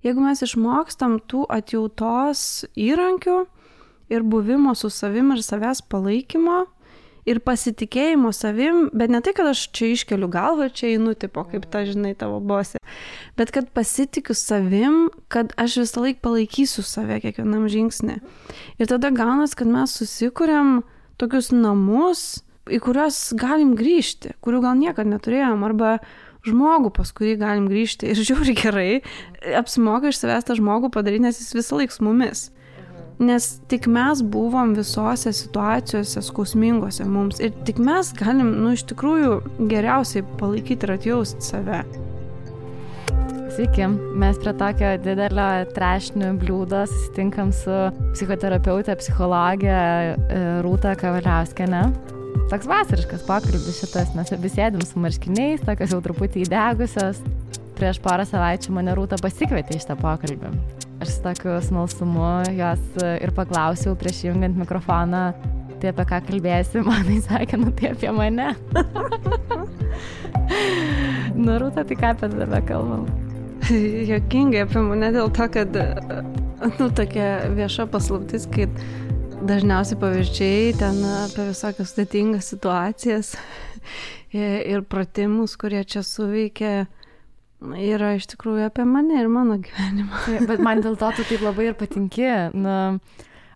Jeigu mes išmokstam tų atjautos įrankių ir buvimo su savim ir savęs palaikymo, ir pasitikėjimo savim, bet ne tai, kad aš čia iškeliu galvą ir čia einu, tipo, kaip ta, žinai, tavo bosė, bet kad pasitikiu savim, kad aš visą laiką palaikysiu save kiekvienam žingsnį. Ir tada gaunas, kad mes susikuriam tokius namus, į kuriuos galim grįžti, kurių gal niekad neturėjom, arba žmogų, pas kurį galim grįžti. Ir žiūri gerai, apsimoka iš savęs tą žmogų padaryti, nes jis visą laiką su mumis. Nes tik mes buvom visose situacijose skausmingose mums ir tik mes galim, iš tikrųjų geriausiai palaikyti ir atjausti save. Sveiki, mes prie tokio didelio trešnių bliūdo susitinkam su psichoterapeutė, psichologė Rūta Kavaliauskienė. Toks vasariškas pokalbis šitas, mes abi sėdim su marškiniais, tokios jau truputį įdegusios. Prieš porą savaičių mane Rūta pasikvietė į šitą pokalbį. Aš su tokiu smalsumu jos ir paklausiau prieš jungiant mikrofoną, tai apie ką kalbėsi, manai sakė, tai apie mane. Rūta, tai ką apie tave kalbam? Juokingai apie mane dėl to, kad tokia vieša paslaptis, kai dažniausiai pavyzdžiai ten apie visokias sudėtingas situacijas ir pratimus, kurie čia suveikia, yra iš tikrųjų apie mane ir mano gyvenimą. Bet man dėl to tu taip labai ir patinki.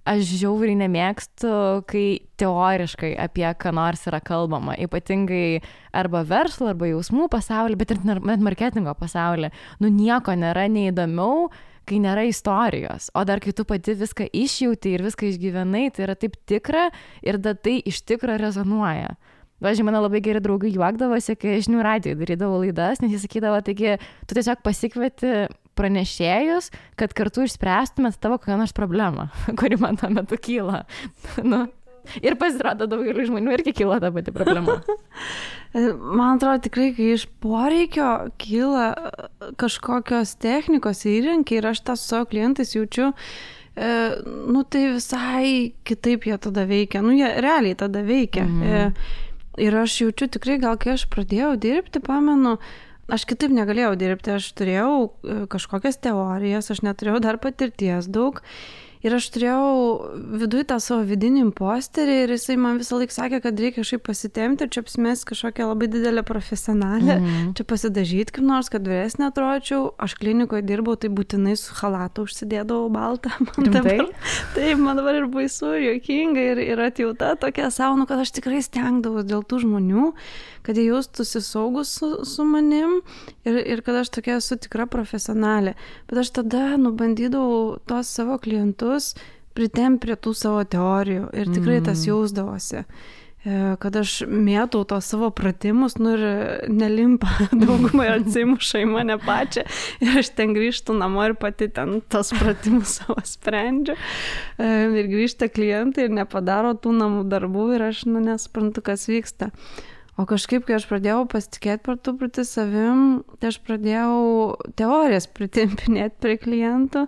Aš žiauriai nemėgstu, kai teoriškai apie ką nors yra kalbama, ypatingai arba verslo, arba jausmų pasaulį, bet ir net marketingo pasaulį. Nieko nėra neįdomiau, kai nėra istorijos. O dar kai tu pati viską išjauti ir viską išgyvenai, tai yra taip tikra ir tai iš tikro rezonuoja. Važiuoju, mano labai geri draugai juokdavosi, kai Žinių radijoje darydavo laidas, nes jis sakydavo, taigi, tu tiesiog pasikvieti pranešėjus, kad kartu išspręstumėt tavo kokią nors problemą, kuri man tuo metu kyla. Ir pasirodo daugeliu žmonių irgi kyla ta pati problema. Man atrodo tikrai, kai iš poreikio kyla kažkokios technikos įrankiai ir aš tą su savo klientais jaučiu, tai visai kitaip jie tada veikia. Jie realiai tada veikia. Ir aš jaučiu tikrai, gal kai aš pradėjau dirbti, pamenu, aš kitaip negalėjau dirbti, aš turėjau kažkokias teorijas, aš neturėjau dar patirties daug. Ir aš turėjau viduje tą savo vidinį imposterį ir jisai man visą laiką sakė, kad reikia kažkaip pasitempti ir čia apsimesti kažkokią labai didelę profesionalę, čia pasidažyti kaip nors, kad vyresnė atrodyčiau. Aš klinikoje dirbau, tai būtinai su chalatu užsidėdavau baltą. Taip, man dabar ir baisu, ir juokinga, ir atjauta tokia savo, kad aš tikrai stengdavau dėl tų žmonių, kad jie jaustųsi saugus su manim ir kad aš tokia esu tikra profesionalė. Bet aš tada bandydavau tos savo klientus pritempt prie tų savo teorijų ir tikrai tas jausdavosi. Kad aš mėtau tos savo pratimus, ir nelimpa daugumai atsimuša į mane pačią ir aš ten grįžtu namo ir pati ten tos pratimus savo sprendžiu. Ir grįžta klientai ir nepadaro tų namų darbų ir aš nesuprantu, kas vyksta. O kažkaip, kai aš pradėjau pasitikėti per truputį savim, tai aš pradėjau teorijas pritempinėti prie klientų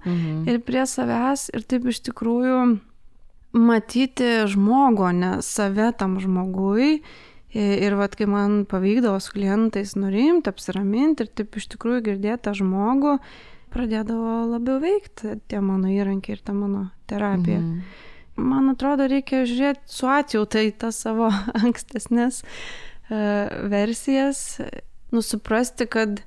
ir prie savęs ir taip iš tikrųjų matyti žmogų, ne save tam žmogui. Ir kai man pavykdavo su klientais nurimti, apsiraminti ir taip iš tikrųjų girdėti tą žmogų, pradėdavo labiau veikti tie mano įrankiai ir ta mano terapija. Man atrodo, reikia žiūrėti su atjauta į tas savo ankstesnės versijas, suprasti, kad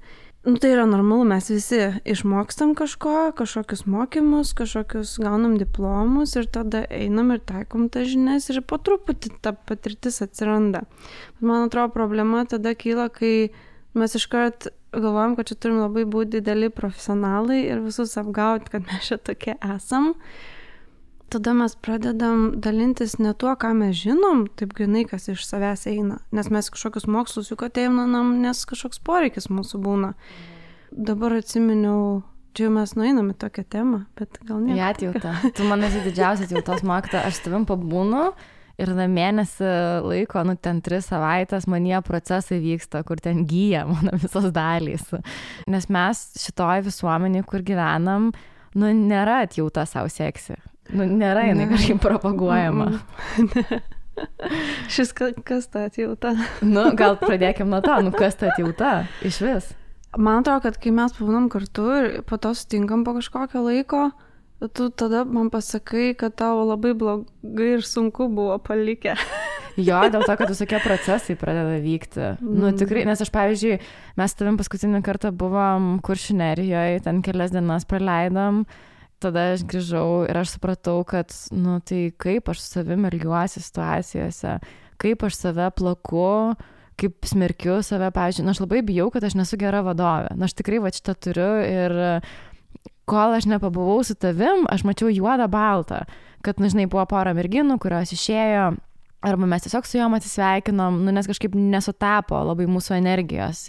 tai yra normalu, mes visi išmokstam kažkokius mokymus, kažkokius gaunam diplomus ir tada einam ir taikom tas žinias ir po truputį ta patirtis atsiranda. Man atrodo, problema tada kyla, kai mes iškart galvojam, kad čia turim labai būti dideli profesionalai ir visus apgauti, kad mes čia tokie esam. Tada mes pradedam dalintis ne tuo, ką mes žinom, taip grinai, kas iš savęs eina. Nes mes kažkokius mokslus juk ateinam, nes kažkoks poreikis mūsų būna. Dabar atsiminiau, čia mes nueinam į tokią temą, bet gal ne. Atjauta. Tu man esi didžiausia atjautos mokytoja. Aš tavim pabūnu ir mėnesį laiko, ten 3 savaitės manyje procesai vyksta, kur ten gyja mano visos dalys. Nes mes šitoj visuomenėje, kur gyvenam, nėra atjauta savo seksi. Nėra jinai kažkaip propaguojama. Šis kas ta atjauta? Gal pradėkim nuo to, kas ta atjauta iš vis? Man atrodo, kad kai mes pabūnam kartu ir po to sutinkam po kažkokio laiko, tu tada man pasakai, kad tau labai blogai ir sunku buvo palikę. Jo, dėl to, kad visokie procesai pradeda vykti. Nu, tikrai, nes aš, pavyzdžiui, mes tavim paskutinį kartą buvom Kuršių Nerijoje, ten kelias dienas praleidom, tada aš grįžau ir aš supratau, kad, nu, tai kaip aš su savim elgiuosi situacijose, kaip aš save plaku, kaip smerkiu save, pavyzdžiui, aš labai bijau, kad aš nesu gera vadovė. Aš tikrai va šitą turiu ir kol aš nepabuvau su tavim, aš mačiau juodą baltą, kad, žinai, buvo pora merginų, kurios išėjo, arba mes tiesiog su jom atsisveikinom, nes kažkaip nesutapo labai mūsų energijos.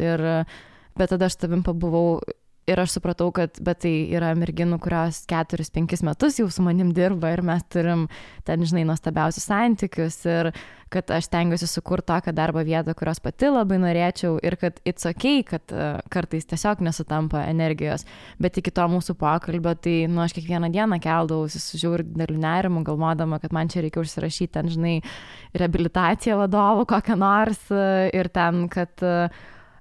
Bet tada aš tavim pabuvau ir aš supratau, kad bet tai yra merginų, kurios 4-5 metus jau su manim dirba ir mes turim ten, žinai, nuostabiausius santykius ir kad aš stengiuosi sukurti tokią darbo vietą, kurios pati labai norėčiau ir kad it's okay, kad kartais tiesiog nesutampa energijos. Bet iki to mūsų pokalbio, tai, nu, aš kiekvieną dieną keldavausi su žiauriu dideliu nerimu, galvodama, kad man čia reikia užsirašyti ten, žinai, reabilitaciją vadovų kokią nors ir ten, kad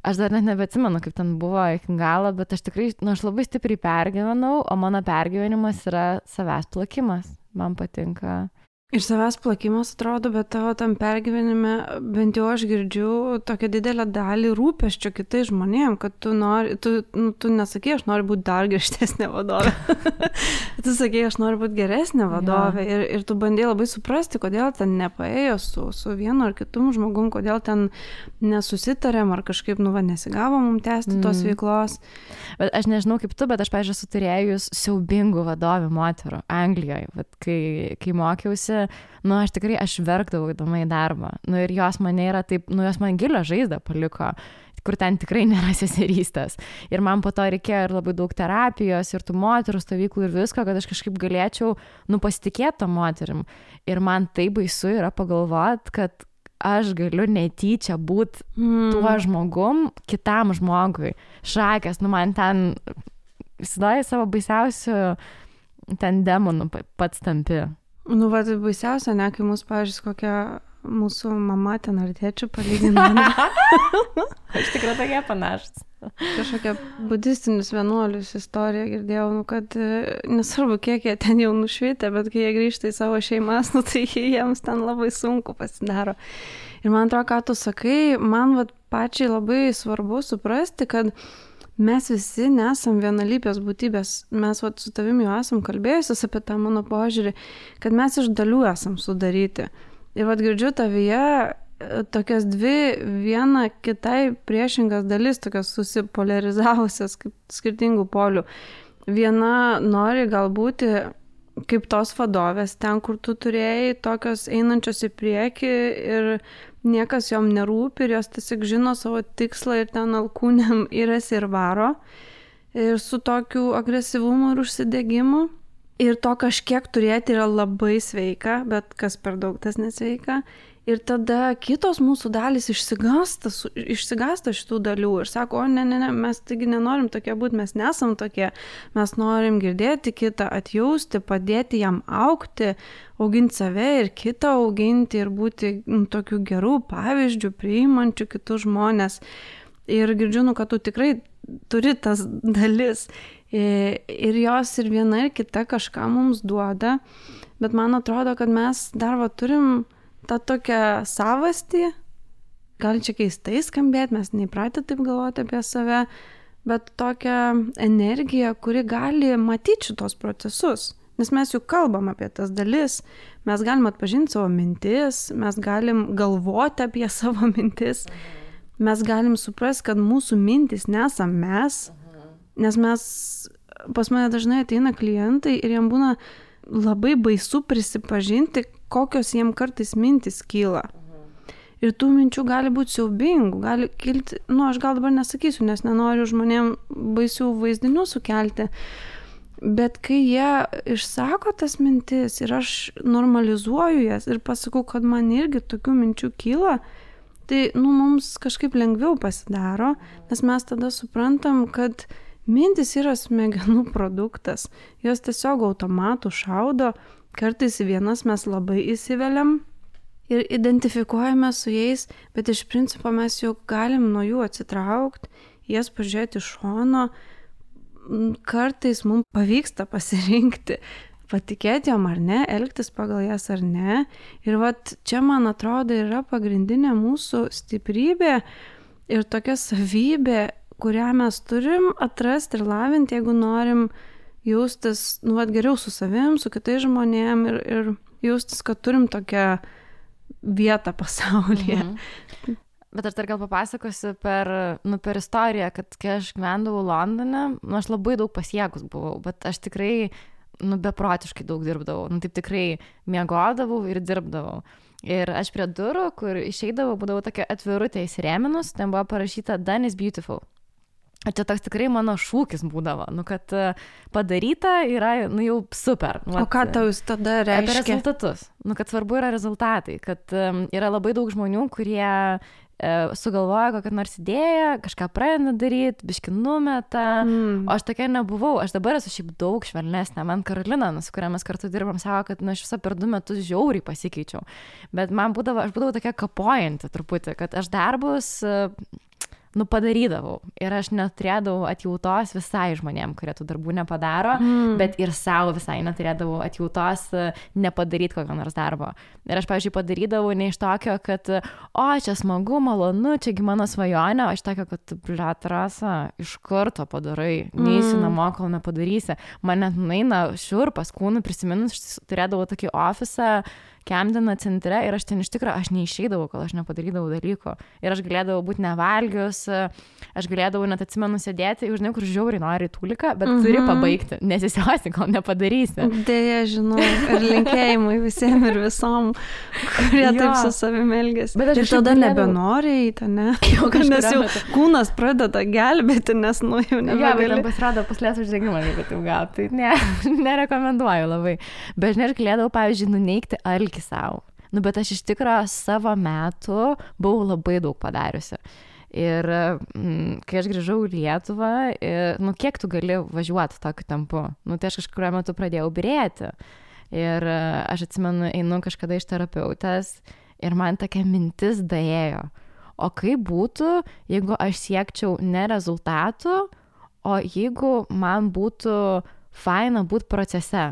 aš dar net nebeatsimenu, kaip ten buvo iki galo, bet aš tikrai, nu, aš labai stipriai pergyvenau, o mano pergyvenimas yra savęs plakimas. Man patinka. Ir savęs plakimas atrodo, bet tavo tam pergyvenime, bent jau aš girdžiu tokią didelę dalį rūpesčio kitais žmonėm, kad tu nesakei, aš noriu būti dar griežtesnė vadovė. Tu sakei, aš noriu būti geresnė vadovė. Ja. Ir tu bandėjai labai suprasti, kodėl ten nepaėjo su vienu ar kitum žmogum, kodėl ten nesusitarėm ar kažkaip, nesigavo mums tęsti tos veiklos. Bet aš nežinau kaip tu, bet aš, pavyzdžiui, esu turėjus siaubingų vadovių moterų Anglijoje. Bet kai mokiausi, aš tikrai verkdavau įdomai į darbą. Ir jos mane yra taip, jos man gilią žaizdą paliko, kur ten tikrai nėra seserystės. Ir man po to reikėjo ir labai daug terapijos, ir tų moterų stovyklų ir visko, kad aš kažkaip galėčiau, pasitikėti tom moterim. Ir man tai baisu yra pagalvoti, kad aš galiu netyčia būti tuo žmogum, kitam žmogui. Šakės, man ten įsivaizduoji savo baisiausių ten demonų pats tampi. Tai baisiausia, ne, kai mūsų, pavyzdžiui, kokia mūsų mama ten ar tėčių palygina. Aš tikrai tokie panašus. Kažkokia budistinius vienuolius istoriją girdėjau, kad nesvarbu, kiek jie ten jau nušvitę, bet kai jie grįžta į savo šeimas, tai jiems ten labai sunku pasidaro. Ir man atrodo, ką tu sakai, man pačiai labai svarbu suprasti, kad mes visi nesam vienalypės būtybės. Mes su tavimi jau esam kalbėjusios apie tą mano požiūrį, kad mes iš dalių esam sudaryti. Ir girdžiu tavyje tokias dvi viena kitai priešingas dalis, tokias susipolarizavusias kaip skirtingų polių. Viena nori galbūt kaip tos vadovės, ten, kur tu turėjai, tokios einančios į priekį ir niekas jom nerūpi ir jos tiesiog žino savo tikslą ir ten alkūnėm įrasi ir varo. Ir su tokiu agresyvumu ir užsidegimu. Ir to kažkiek turėti yra labai sveika, bet kas per daug tas nesveika. Ir tada kitos mūsų dalys išsigąsta šitų dalių ir sako, ne, mes taigi nenorim tokie būti, mes nesam tokie, mes norim girdėti kitą, atjausti, padėti jam augti, auginti save ir kitą auginti ir būti tokių gerų pavyzdžių, priimančių kitus žmonės. Ir girdžiu, kad tu tikrai turi tas dalis ir jos ir viena ir kita kažką mums duoda, bet man atrodo, kad mes dar turim tą tokią savastį, gal čia keistai skambėti, mes neįpratę taip galvoti apie save, bet tokią energiją, kuri gali matyti šitos procesus. Nes mes juk kalbam apie tas dalis, mes galim atpažinti savo mintis, mes galim galvoti apie savo mintis, mes galim suprasti, kad mūsų mintis nesam mes, nes pas mane dažnai ateina klientai ir jiem būna labai baisu prisipažinti, kokios jiem kartais mintis kyla. Ir tų minčių gali būti siaubingų, gali kilti, aš gal dabar nesakysiu, nes nenoriu žmonėm baisių vaizdinių sukelti, bet kai jie išsako tas mintis ir aš normalizuoju jas ir pasakau, kad man irgi tokių minčių kyla, tai mums kažkaip lengviau pasidaro, nes mes tada suprantam, kad mintis yra smegenų produktas, jos tiesiog automatų šaudo, kartais vienas mes labai įsiveliam ir identifikuojame su jais, bet iš principo mes jau galim nuo jų atsitraukti jas pažiūrėti iš šono, kartais mums pavyksta pasirinkti, patikėti jom ar ne, elgtis pagal jas ar ne. Ir vat čia, man atrodo, yra pagrindinė mūsų stiprybė ir tokia savybė, kurią mes turim atrasti ir lavinti, jeigu norim jaustis, geriau su savim, su kitais žmonėm ir jaustis, kad turim tokią vietą pasaulyje. Bet aš dar gal papasakosiu per istoriją, kad kai aš gyvendavau Londone, aš labai daug pasiekus buvau, bet aš tikrai, beprotiškai daug dirbdavau. Taip tikrai miegodavau ir dirbdavau. Ir aš prie durų, kur išeidavau, būdavau tokia atvirutė įsirėminus, ten buvo parašyta Done is beautiful. Ir čia toks tikrai mano šūkis būdavo, kad padaryta yra, jau super. O ką tau jūs tada reiškia? Apie rezultatus. Kad svarbu yra rezultatai, kad yra labai daug žmonių, kurie sugalvoja kokią nors idėją, kažką pradeda daryti, biškį numeta, o aš tokia nebuvau. Aš dabar esu šiaip daug švelnesnė. Man Karolina, su kuria mes kartu dirbam, sako, kad aš visą per 2 metus žiauriai pasikeičiau. Bet aš būdavau tokia kapojanti truputį, kad aš darbus padarydavau. Ir aš neturėdavau atjautos visai žmonėm, kurie tų darbų nepadaro, bet ir savo visai neturėdavau atjautos nepadaryti kokio nors darbo. Ir aš, pavyzdžiui, padarydavau ne iš tokio, kad čia smagu, malonu, čiagi mano svajonė, aš tokio, kad, Rasa, iš karto padarai, neįsi namo, kol nepadarysi. Man net nueina šiurpas kūnų, prisiminus, turėdavau tokį ofisą Camdeno centre ir aš ten iš tikrųjų, aš neišeidavau, kol aš nepadarydavau dalyko. Ir aš galėdavau būti nevalgius, aš galėdavau net atsimenu sėdėti, žinai, kur žiauriai nori tūliką, bet turi pabaigti, nesisiosi, kol nepadarysi. Dėja, žinau, ir linkėjimai visiems ir visom, kurie taip su savimi elgėsi. Bet aš tada nebenori eiti, ne? Nes jau kūnas pradeda gelbėti, nes jau nebegali. Jo, bet pasirodo puslės uždegimą, jeigu taip gauti. Tai nerekomenduoju labai. Bet žinai, aš galėdavau, pavyzdžiui, nuneigti alkį savo. Bet aš iš tikrųjų savo metu buvau labai daug padariusi. Ir kai aš grįžau į Lietuvą, kiek tu gali važiuoti tokiu tempu? Tai aš kažkuriuo metu pradėjau birėti. Ir aš atsimenu, einu kažkada iš terapeutės ir man tokia mintis daėjo. O kaip būtų, jeigu aš siekčiau ne rezultatų, o jeigu man būtų faina būti procese?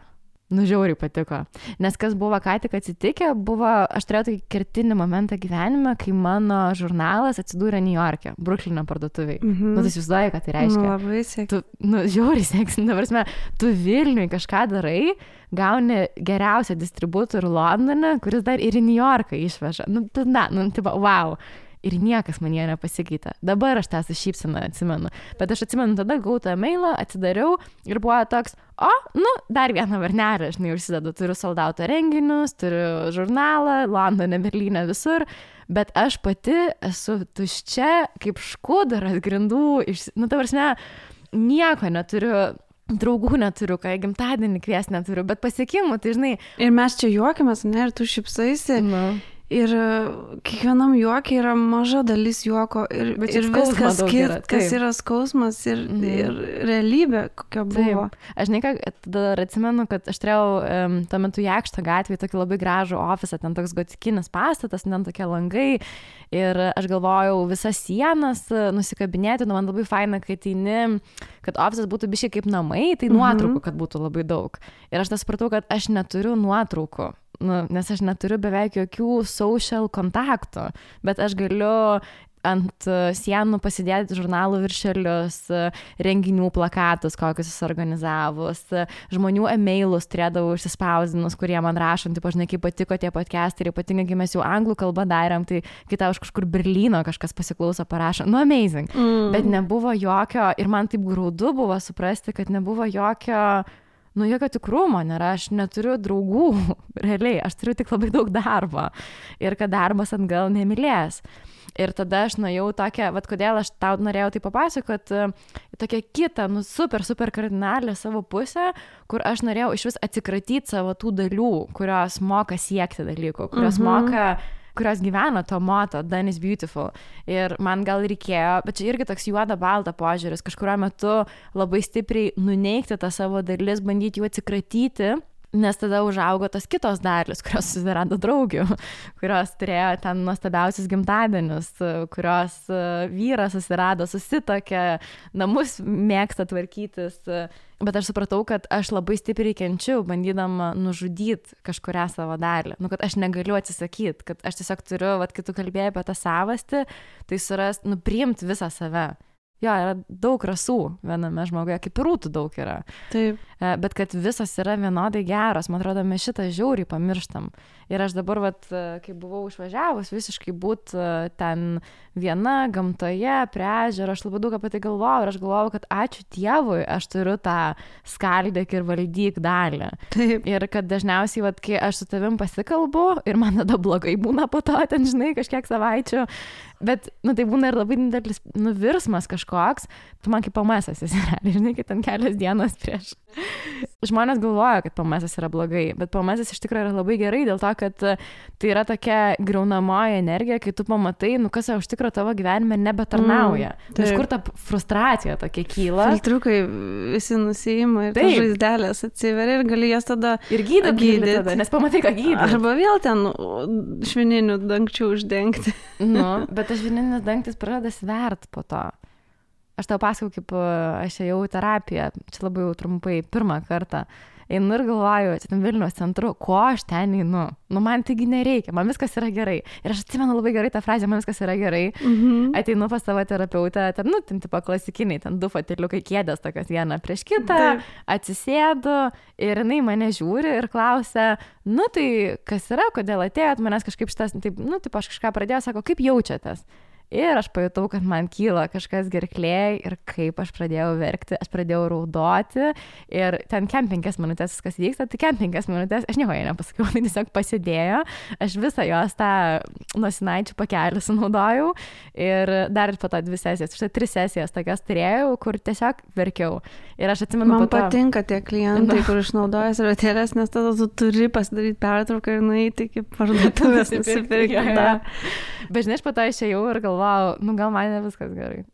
Žiauriai patiko. Nes kas buvo ką tik atsitikę, aš turėjau tokį kertinį momentą gyvenime, kai mano žurnalas atsidūrė New York'e, Bruklino parduotuviai. Tai įsivaizduoji, ką tai reiškia. Labai sėkmingai. Žiauriai sėkmingai. Tu Vilniui kažką darai, gauni geriausią distributorių Londone, kuris dar ir į New Yorką išveža. Wow. Ir niekas man jie nepasikeitė. Dabar aš tą su šypsena atsimenu. Bet aš atsimenu, tada gavau tą mailą, atsidariau ir buvo toks, dar vieną varnelę, žinai, užsidedu. Turiu soldauto renginius, turiu žurnalą, Londone, Berlyne, visur. Bet aš pati esu tuščia, kaip škudaras grindų. Ta prasme, nieko neturiu. Draugų neturiu, ką gimtadienį kvies neturiu, bet pasiekimų, tai žinai. Ir mes čia juokiamės, ne, ir tu šypsaisi. Ir kiekvienam juokiai yra maža dalis juoko ir viskas kas yra skausmas ir realybė, kokia buvo. Taip. Aš dar atsimenu, kad aš turėjau tuo metu Jakšto gatvėje tokį labai gražų ofisą, ten toks gotikinis pastatas, ten tokie langai ir aš galvojau visas sienas nusikabinėti, man labai faina, kad ofisas būtų biškai kaip namai, tai nuotraukų, kad būtų labai daug. Ir aš supratau, kad aš neturiu nuotraukų. Nes aš neturiu beveik jokių social kontaktų, bet aš galiu ant sienų pasidėti žurnalų viršelius, renginių plakatus, kokius jis organizavus, žmonių e-mailus turėdavau išsispausdinus, kurie man rašant, žinai, kaip patiko tie podcastai, ypatingai, kai mes jau anglų kalbą darėm, tai kai tau iš kažkur Berlyno kažkas pasiklauso, parašo, amazing, bet nebuvo jokio, ir man taip graudu buvo suprasti, kad nebuvo jokio tikrumo nėra, aš neturiu draugų, realiai, aš turiu tik labai daug darbo ir kad darbas atgal nemylės. Ir tada aš nuėjau tokią, kodėl aš tau norėjau tai papasakoti, tokią kitą, super kardinalią savo pusę, kur aš norėjau iš vis atsikratyti savo tų dalių, kurios moka siekti dalykų, kurios gyvena to moto, Done is beautiful. Ir man gal reikėjo, bet čia irgi toks juoda-balta požiūris, kažkuriuo metu labai stipriai nuneigti tą savo dalis, bandyti jų atsikratyti, Nes tada užaugo tos kitos dalis, kurios susirado draugių, kurios turėjo ten nuostabiausius gimtadienius, kurios vyras susirado, susitokė, namus mėgsta tvarkytis. Bet aš supratau, kad aš labai stipriai kenčiu, bandydama nužudyti kažkurią savo dalį. Nu, kad aš negaliu atsisakyti, kad aš tiesiog turiu, kai tu kalbėjai apie tą savastį, tai priimti visą save. Jo, yra daug rasų viename žmoguje, kaip ir rūtų daug yra. Taip. Bet kad visos yra vienodai geros, man atrodo, mes šitą žiauriai pamirštam. Ir aš dabar, kai buvau išvažiavus, visiškai būt ten viena, gamtoje, prie ežero, aš labai daug apie tai galvojau ir aš galvojau, kad ačiū Dievui, aš turiu tą skaldyk ir valdyk dalį. Taip. Ir kad dažniausiai, kai aš su tavim pasikalbu ir man tada blogai būna po to, ten, žinai, kažkiek savaičių, bet, tai būna ir labai didelis virsmas kažkoks, tu man kaip PMS-as esi, žinai, kad ten kelias dienas prieš. Žmonės galvoja, kad PMS-as yra blogai, bet PMS-as iš tikrųjų yra labai gerai dėl to, kad tai yra tokia griaunamoji energija, kai tu pamatai, kas iš tikrųjų tavo gyvenime nebetarnauja. Iš kur ta frustracija tokia kyla. Filtriukai visi nusiima ir ta žaizdelės atsiveria ir gali jas tada ir gydyti tada, nes pamatai, ką gydyti. Arba vėl ten švininių dangčių uždengti. Bet tas švininis dangtis pradeda svert po to. Aš tau pasakau, kaip aš ėjau į terapiją, čia labai jau trumpai, pirmą kartą. Einu ir galvoju, čia ten Vilniaus centru, ko aš ten einu? Man taigi nereikia, man viskas yra gerai. Ir aš atsimenu labai gerai tą frazę, man viskas yra gerai. Ateinu pas savo terapeutę, ten tipo klasikiniai, ten 2 foteliukai kėdės, tokios viena prieš kitą, atsisėdu ir jinai mane žiūri ir klausia, tai kas yra, kodėl atėjot, manęs kažkaip šitas, taip aš kažką pradėjau, sako, kaip jaučiatės? Ir aš pajutau, kad man kyla kažkas gerklėj ir kaip aš pradėjau verkti, aš pradėjau raudoti ir ten 5 minutės viskas vyksta, tai 5 minutės, aš nieko jai nepasakiau, tai tiesiog pasidėjo, aš visą jos tą nosinaičių pakelį sunaudojau ir dar po to 2 sesijas, štai 3 sesijas tokias turėjau, kur tiesiog verkiau. Ir aš atsimenu, man patinka tie klientai, kur išnaudoja servetėlės, nes tada tu turi pasidaryti pertrauką ir nueiti iki parduotuvės nusipirkti. Bet žinai, aš po to išėjau ir galvojau, gal man ne viskas gerai.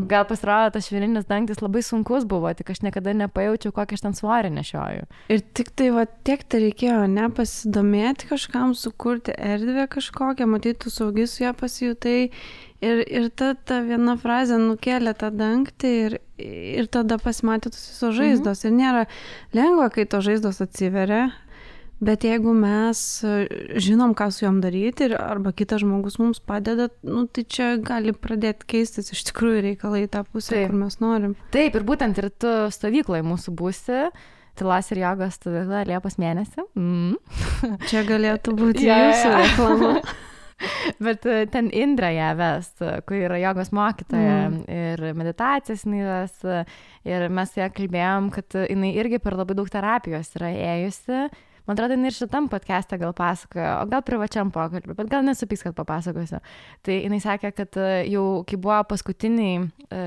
Gal pasirodo, tas švininis dangtis labai sunkus buvo, tik aš niekada nepajaučiau, kokį aš ten svorį nešioju. Ir tik tai, tiek tai reikėjo, nepasidomėti kažkam, sukurti erdvę kažkokią, matyti, tu saugi su ją pasijutai. Ir ta viena frazė nukėlė tą dangtį ir tada pasimatė tos visos žaizdos. Ir nėra lengva, kai tos žaizdos atsiveria. Bet jeigu mes žinom, ką su jom daryti arba kitas žmogus mums padeda, tai čia gali pradėti keistis iš tikrųjų reikalai tą pusę, kur mes norim. Taip, ir būtent ir tu stovykloje mūsų būsi, tylos ir jogos stovykla Liepos mėnesį. Čia galėtų būti jūsų reklama. Bet ten Indra ją ves, kur yra jogos mokytoja ir meditacijas jinai ves. Ir mes su ją kalbėjom, kad jinai irgi per labai daug terapijos yra ėjusi. Man atrodo, jinai ir šitam podcast'e gal pasakojo, o gal privačiam pokalbį, bet gal nesupyks, kad papasakosiu. Tai jinai sakė, kad jau kai buvo paskutiniai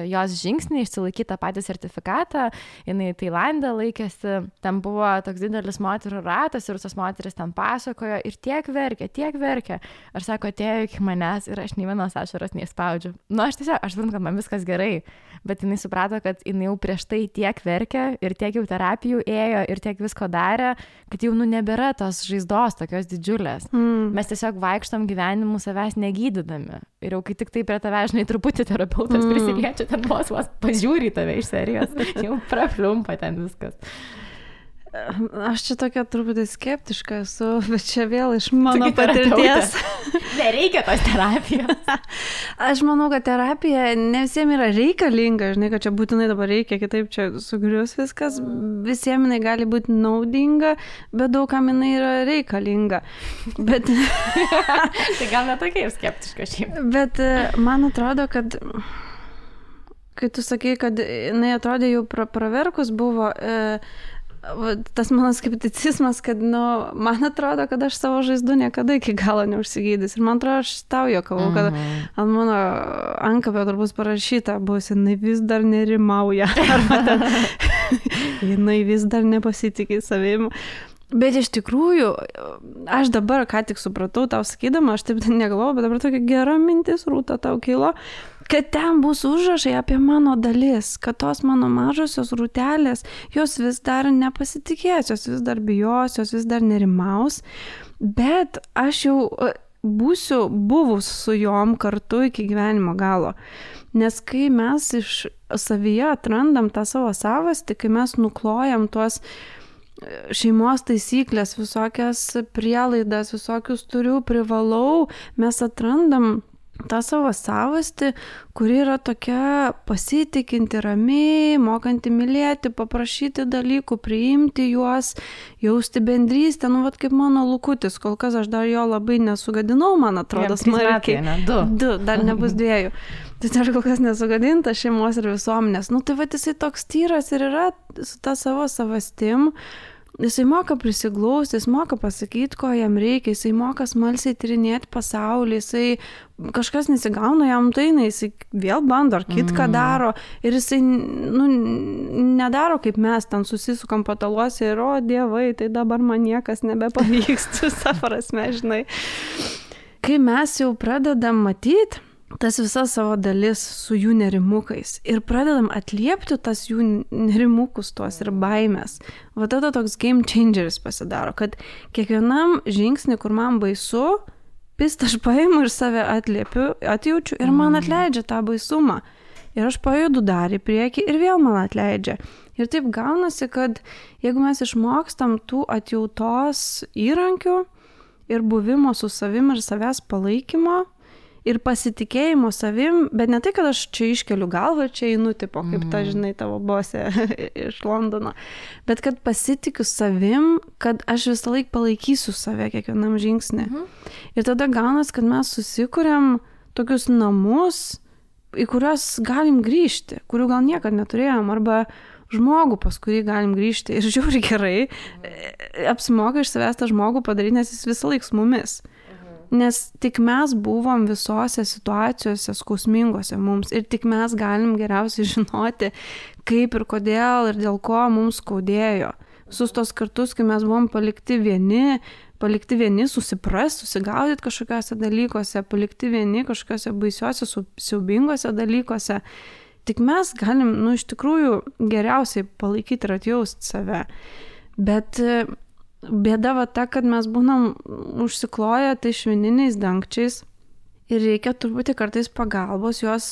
jos žingsniai išsilaikyti tą patį sertifikatą, jinai Tailande laikėsi, ten buvo toks didelis moterų ratas ir visos moteris ten pasakojo ir tiek verkė. Aš sako, atėjo iki manęs ir aš nei vienos ašaros neįspaudžiu. Aš suprantu, kad man viskas gerai, bet jinai suprato, kad jinai jau prieš tai tiek verkė ir tiek jau terapijų ėjo ir tiek visko darė, kad jau nebėra tos žaizdos tokios didžiulės. Mes tiesiog vaikštam gyvenimu savęs negydydami. Ir jau kai tik tai prie tave, žinai, truputį terapeutas prisiliečia, ten vos pažiūri tave iš serijos, jau prapliumpa ten viskas. Aš čia tokia truputį skeptiška esu, bet čia vėl iš mano patirties. Nereikia tos terapijos. Aš manau, kad terapija ne visiems yra reikalinga, žinai, kad čia būtinai dabar reikia, kitaip čia sugrius viskas. Visiems jinai gali būti naudinga, bet daugam jinai yra reikalinga. Bet... Tai gal netokia ir skeptiška šiaip. Bet man atrodo, kad... Kai tu sakai, kad jinai atrodė jau praverkus buvo... Tas mano skepticizmas, kad, man atrodo, kad aš savo žaizdų niekada iki galo neužsigydys. Ir man atrodo, aš tau juokavau, kad ant mano ankapio turbūt parašyta bus, jinai vis dar nerimauja. Arba jinai vis dar nepasitikė savim. Bet iš tikrųjų, aš dabar ką tik supratau, tau sakydama, aš taip negalvojau, bet dabar tokia gera mintis, Rūta, tau kilo, kad ten bus užrašai apie mano dalis, kad tos mano mažosios rūtelės, jos vis dar nepasitikės, jos vis dar bijos, jos vis dar nerimaus, bet aš jau būsiu buvus su jom kartu iki gyvenimo galo. Nes kai mes iš savyje atrandam tą savo savastį, kai mes nuklojam tuos šeimos taisyklės, visokias prielaidas, visokius turiu, privalau, mes atrandam tą savo savastį, kuri yra tokia pasitikinti, ramiai, mokanti mylėti, paprašyti dalykų, priimti juos, jausti bendrystę, vat kaip mano Lukutis, kol kas aš dar jo labai nesugadinau, man atrodo, smarkiai. Du, dar nebus 2. Tai aš kol kas nesugadinta šeimos ir visuomenės. Tai jisai toks tyras ir yra su ta savo savastim. Jisai moka prisiglausti, jis moka pasakyti, ko jam reikia, jisai moka smalsiai tyrinėti pasaulį, jisai kažkas nesigauna jam jisai vėl bando ar kitką daro ir jisai nedaro kaip mes ten susisukam pataluose ir dievai, tai dabar man niekas nebepavyks, visą prasme, žinai. Kai mes jau pradedam matyti tas visas savo dalis su jų nerimukais ir pradedam atliepti tas jų nerimukus tuos ir baimės. Tada toks game changeris pasidaro, kad kiekvienam žingsnį, kur man baisu, aš paimu ir save atliepiu, atjaučiu ir man atleidžia tą baisumą. Ir aš pajudu dar į priekį ir vėl man atleidžia. Ir taip gaunasi, kad jeigu mes išmokstam tų atjautos įrankių ir buvimo su savim ir savęs palaikymo, ir pasitikėjimo savim, bet ne tai, kad aš čia iškeliu galvą ir čia einu, tipo, kaip ta, žinai, tavo bosė iš Londono, bet kad pasitikiu savim, kad aš visą laiką palaikysiu save kiekvienam žingsnį. Ir tada gaunas, kad mes susikuriam tokius namus, į kuriuos galim grįžti, kurių gal niekad neturėjom, arba žmogų, pas kurį galim grįžti. Ir žiūri gerai, apsimoka iš savęs tą žmogų padaryti, nes jis visą laiką su mumis. Nes tik mes buvom visose situacijose skausmingose mums ir tik mes galim geriausiai žinoti, kaip ir kodėl ir dėl ko mums skaudėjo. Visus tos kartus, kai mes buvom palikti vieni susiprast, susigaudyti kažkokiuose dalykuose, palikti vieni kažkokiuose baisiuose, siaubingose dalykuose, tik mes galim, iš tikrųjų, geriausiai palaikyti ir atjausti save. Bet bėda va ta, kad mes būnam užsikloję tai švininiais dangčiais ir reikia turbūt kartais pagalbos juos,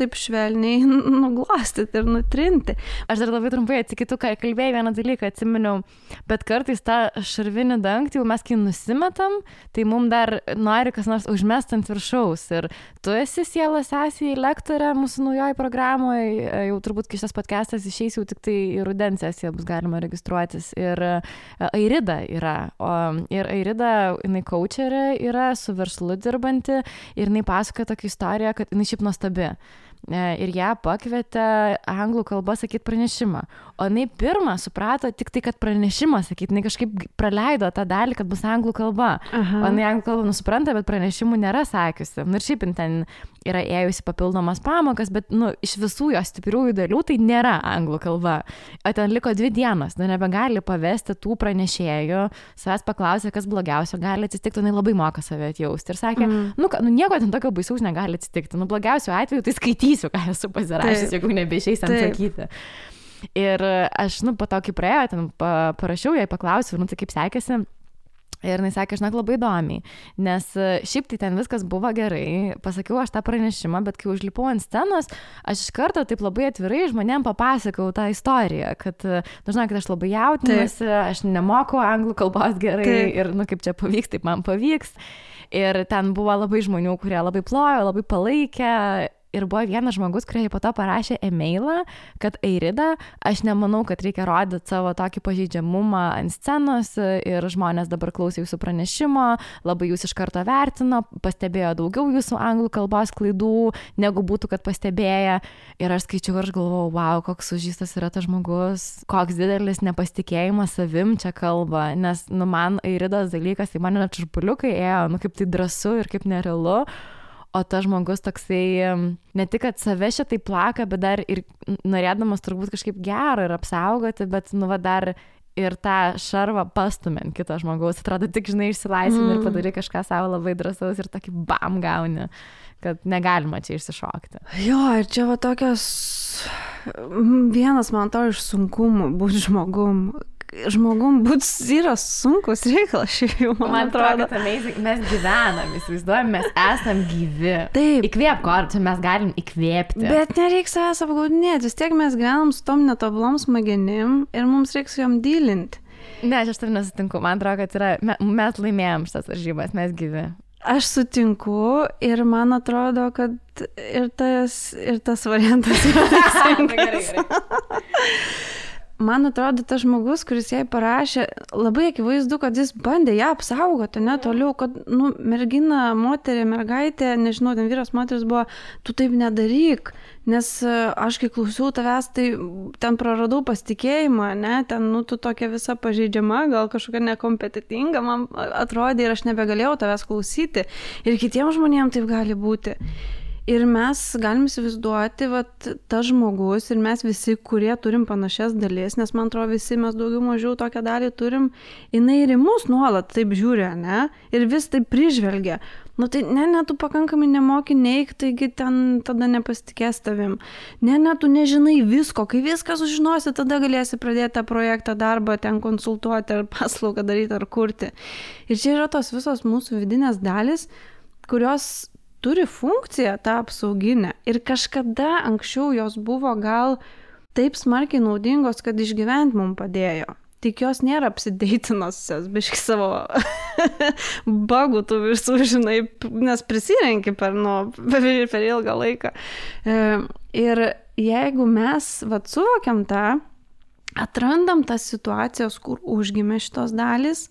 taip švelniai nuglostyti ir nutrinti. Aš dar labai trumpai atsikitu, kai kalbėjai vieną dalyką, atsiminiau, bet kartais tą šarvinį dangtį, jau mes kai nusimetam, tai mums dar nori kas nors užmest ant viršaus. Ir tu esi sielos sesija lektorė mūsų naujoje programoje, jau turbūt kai šitas podcastas išeis, jau tik tai į rudens sesiją bus galima registruotis. Ir Airida yra, ir Airida, jinai coacherė yra, su verslu dirbanti. Ir jinai pasakoja tokią istoriją, kad jinai šiaip nuostabi. Ir ją pakvietė anglų kalbą sakyti pranešimą. O jinai pirmą suprato tik tai, kad pranešimą sakyti. Jinai kažkaip praleido tą dalį, kad bus anglų kalba. O jinai anglų kalbą supranta, bet pranešimų nėra sakiusi. Ir šiaip ten yra ėjusi papildomas pamokas, bet iš visų jos stipriųjų dalių tai nėra anglų kalba. O ten liko 2 dienos. Nebegali pavesti tų pranešėjų. Savęs paklausė, kas blogiausio gali atsitikti. Jinai labai moka save atjausti. Ir sakė, nieko ten tokio baisaus negali atsitikti. Blogiausiu atveju tai skaitysiu, ką esu pasirašęs, jeigu nebeišeis ten sakyti. Ir aš, po to, kai praėjo, ten parašiau, jai paklausiau, tai kaip sekėsi. Ir jinai sakė, žinok, labai įdomiai, nes šiaip tai ten viskas buvo gerai, pasakiau aš tą pranešimą, bet kai užlipau ant scenos, aš iš karto taip labai atvirai žmonėm papasakau tą istoriją, kad, žinokit, aš labai jautinuosi, aš nemoku anglų kalbos gerai ir, kaip čia pavyks, taip man pavyks. Ir ten buvo labai žmonių, kurie labai plojo, labai palaikė. Ir buvo vienas žmogus, kurie po to parašė e-mailą, kad Airida, aš nemanau, kad reikia rodyti savo tokį pažeidžiamumą ant scenos ir žmonės dabar klausė jūsų pranešimo, labai jūs iš karto vertino, pastebėjo daugiau jūsų anglų kalbos klaidų, negu būtų, kad pastebėję. Ir aš skaičiau ir aš galvojau, wow, koks sužystas yra tas žmogus, koks didelis nepasitikėjimas savim čia kalba, nes man Airidos dalykas, tai man net čurpuliukai ėjo, kaip tai drąsu ir kaip nerealu. O tas žmogus toksai, ne tik, kad save šitai plaka, bet dar ir norėdamas turbūt kažkaip gero ir apsaugoti, bet dar ir tą šarvą pastumint kito žmogaus, atrodo tik, žinai, išsilaisvini ir padarai kažką savo labai drąsaus ir tokį bam gauni, kad negalima čia išsišokti. Jo, ir čia va tokios, vienas man to iš sunkumų būti žmogum būti yra sunkus reikalas, šiaip jau man atrodo. Mes gyvenam, įsivaizduojam, mes esam gyvi. Taip. Įkvėp kortų, mes galim įkvėpti. Bet nereiks savęs apgaudinėti, vis tiek mes gyvenam su tom netobulom smegenim ir mums reiks jom dylinti. Ne, aš tam nesutinku, man atrodo, kad mes laimėjom šitas varžybas, mes gyvi. Aš sutinku ir man atrodo, kad ir tas variantas yra teisingas. Man atrodo, tas žmogus, kuris jai parašė, labai akivaizdu, kad jis bandė ją apsaugoti, ne toliau, kad, mergina, moterė, mergaitė, nežinau, ten vyras, moteris buvo, tu taip nedaryk, nes aš kai klausiau tavęs, tai ten praradau pasitikėjimą, ne, ten, tu tokia visa pažeidžiama, gal kažkokia nekompetitinga, man atrodė ir aš nebegalėjau tavęs klausyti. Ir kitiems žmonėms taip gali būti. Ir mes galim įsivaizduoti, tas žmogus ir mes visi, kurie turim panašias dalis, nes man atrodo visi mes daugiau mažiau tokią dalį turim, jinai ir į mus nuolat taip žiūri, ne? Ir vis taip prižvelgia. Tai ne, tu pakankamai nemoki neik, taigi ten tada nepasitikės tavim. Ne, tu nežinai visko, kai viską sužinosi, tada galėsi pradėti tą projektą, darbą, ten konsultuoti ar paslaugą daryti ar kurti. Ir čia yra tos visos mūsų vidinės dalis, kurios turi funkciją tą apsauginę ir kažkada anksčiau jos buvo gal taip smarkiai naudingos, kad išgyventi mums padėjo. Tik jos nėra apsideitinusios, biški savo bagų tų visų, žinai, nes prisirenki per ilgą laiką. Ir jeigu mes suvokiam tą, atrandam tas situacijas, kur užgimė šitos dalys,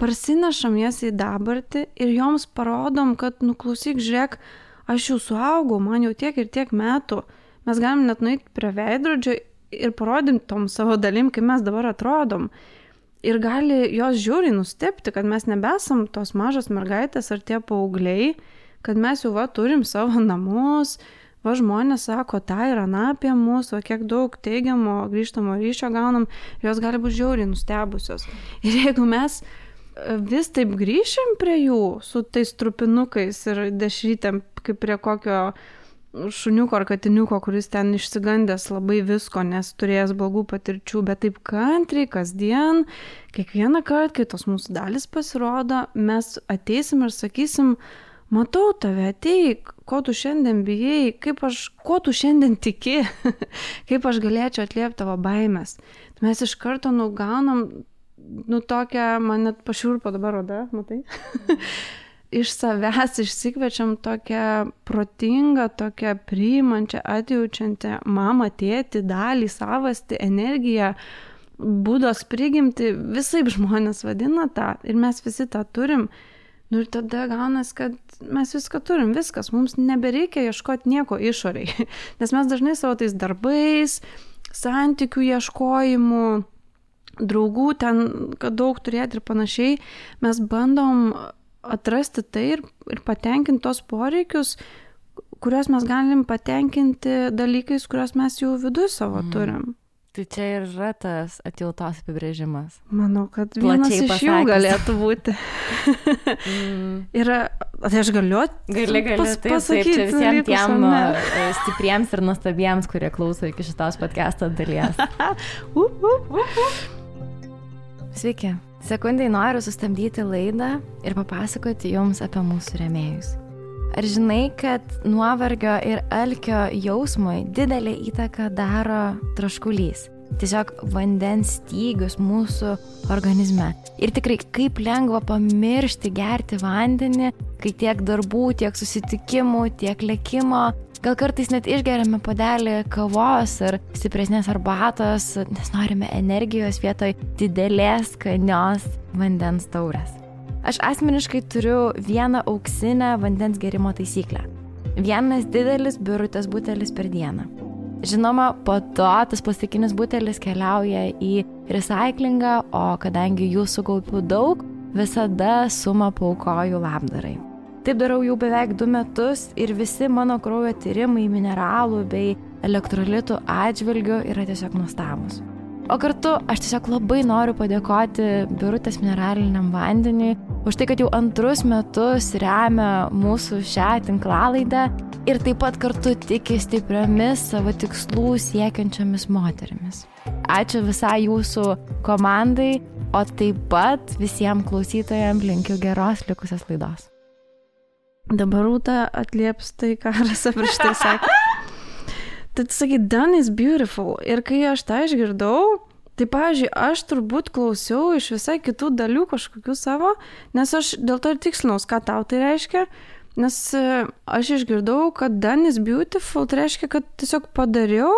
parsinešam jas į dabartį ir joms parodom, kad, klausyk, žiūrėk, aš jau suaugau, man jau tiek ir tiek metų. Mes galim net nueiti prie veidrodžio ir parodim tom savo dalim, kaip mes dabar atrodom. Ir gali jos žiūriai nustebti, kad mes nebesam tos mažos mergaitės ar tie paaugliai, kad mes jau turim savo namus, žmonės sako, tai yra apie mūsų, kiek daug teigiamo grįžtamo ryšio gaunam, jos gali būti žiauriai nustebusios. Ir jeigu mes vis taip grįšim prie jų su tais trupinukais ir dešrytėm, kaip prie kokio šuniuko ar katiniuko, kuris ten išsigandęs labai visko, nes turėjęs blogų patirčių, bet taip kantriai, kasdien, kiekvieną kartą, kai tos mūsų dalis pasirodo, mes ateisim ir sakysim, matau tave, ateik, ko tu šiandien bijai, ko tu šiandien tiki, kaip aš galėčiau atliepti tavo baimės. Mes iš karto gaunam, tokią, man net pašiurpo dabar oda, matai? Iš savęs išsikvečiam tokią protingą, tokią priimančią, atjaučiančią mamą, tėtį, dalį, savastį, energiją, būdos prigimti, visaip žmonės vadina tą ir mes visi tą turim. Ir tada gaunas, kad mes viską turim, viskas, mums nebereikia ieškoti nieko išoriai, nes mes dažnai savo tais darbais, santykių ieškojimų, draugų ten, kad daug turėti ir panašiai, mes bandom atrasti tai ir patenkinti tos poreikius, kuriuos mes galim patenkinti dalykais, kuriuos mes jau viduje savo turim. Tai čia ir yra tas atjautos apibrėžimas. Manau, kad vienas iš jų galėtų būti. Ir tai aš galiu pasakyti čia visiems tiem stipriems ir nuostabiems, kurie klauso iki šitos podcast'o dalies. Sveiki. Sekundai noriu sustabdyti laidą ir papasakoti jums apie mūsų rėmėjus. Ar žinai, kad nuovargio ir alkio jausmui didelę įtaką daro troškulys? Tiesiog vandens stygius mūsų organizme. Ir tikrai kaip lengva pamiršti gerti vandenį, kai tiek darbų, tiek susitikimų, tiek lėkimo. Gal kartais net išgeriame puodelį kavos ar stipresnės arbatos, nes norime energijos vietoj didelės skanios vandens taurės. Aš asmeniškai turiu vieną auksinę vandens gerimo taisyklę. Vienas didelis birutės butelis per dieną. Žinoma, po to tas plastikinis butelis keliauja į recyklingą, o kadangi jų sukaupiu daug, visada sumą paaukoju labdarai. Taip darau jau beveik 2 metus ir visi mano kraujo tyrimai mineralų bei elektrolitų atžvilgių yra tiesiog nuostabūs. O kartu aš tiesiog labai noriu padėkoti Birutės mineraliniam vandeniui už tai, kad jau 2 metus remia mūsų šią tinklalaidę ir taip pat kartu tiki stipriomis savo tikslų siekiančiomis moterimis. Ačiū visai jūsų komandai, o taip pat visiems klausytojams linkiu geros likusios laidos. Dabar Rūta atlieps tai, ką Rasa prieš tai sakė. Tai sakai, done is beautiful. Ir kai aš tą išgirdau, tai, pavyzdžiui, aš turbūt klausiau iš visai kitų dalių kažkokių savo, nes aš dėl to ir tikslinaus, ką tau tai reiškia, nes aš išgirdau, kad done is beautiful, tai reiškia, kad tiesiog padariau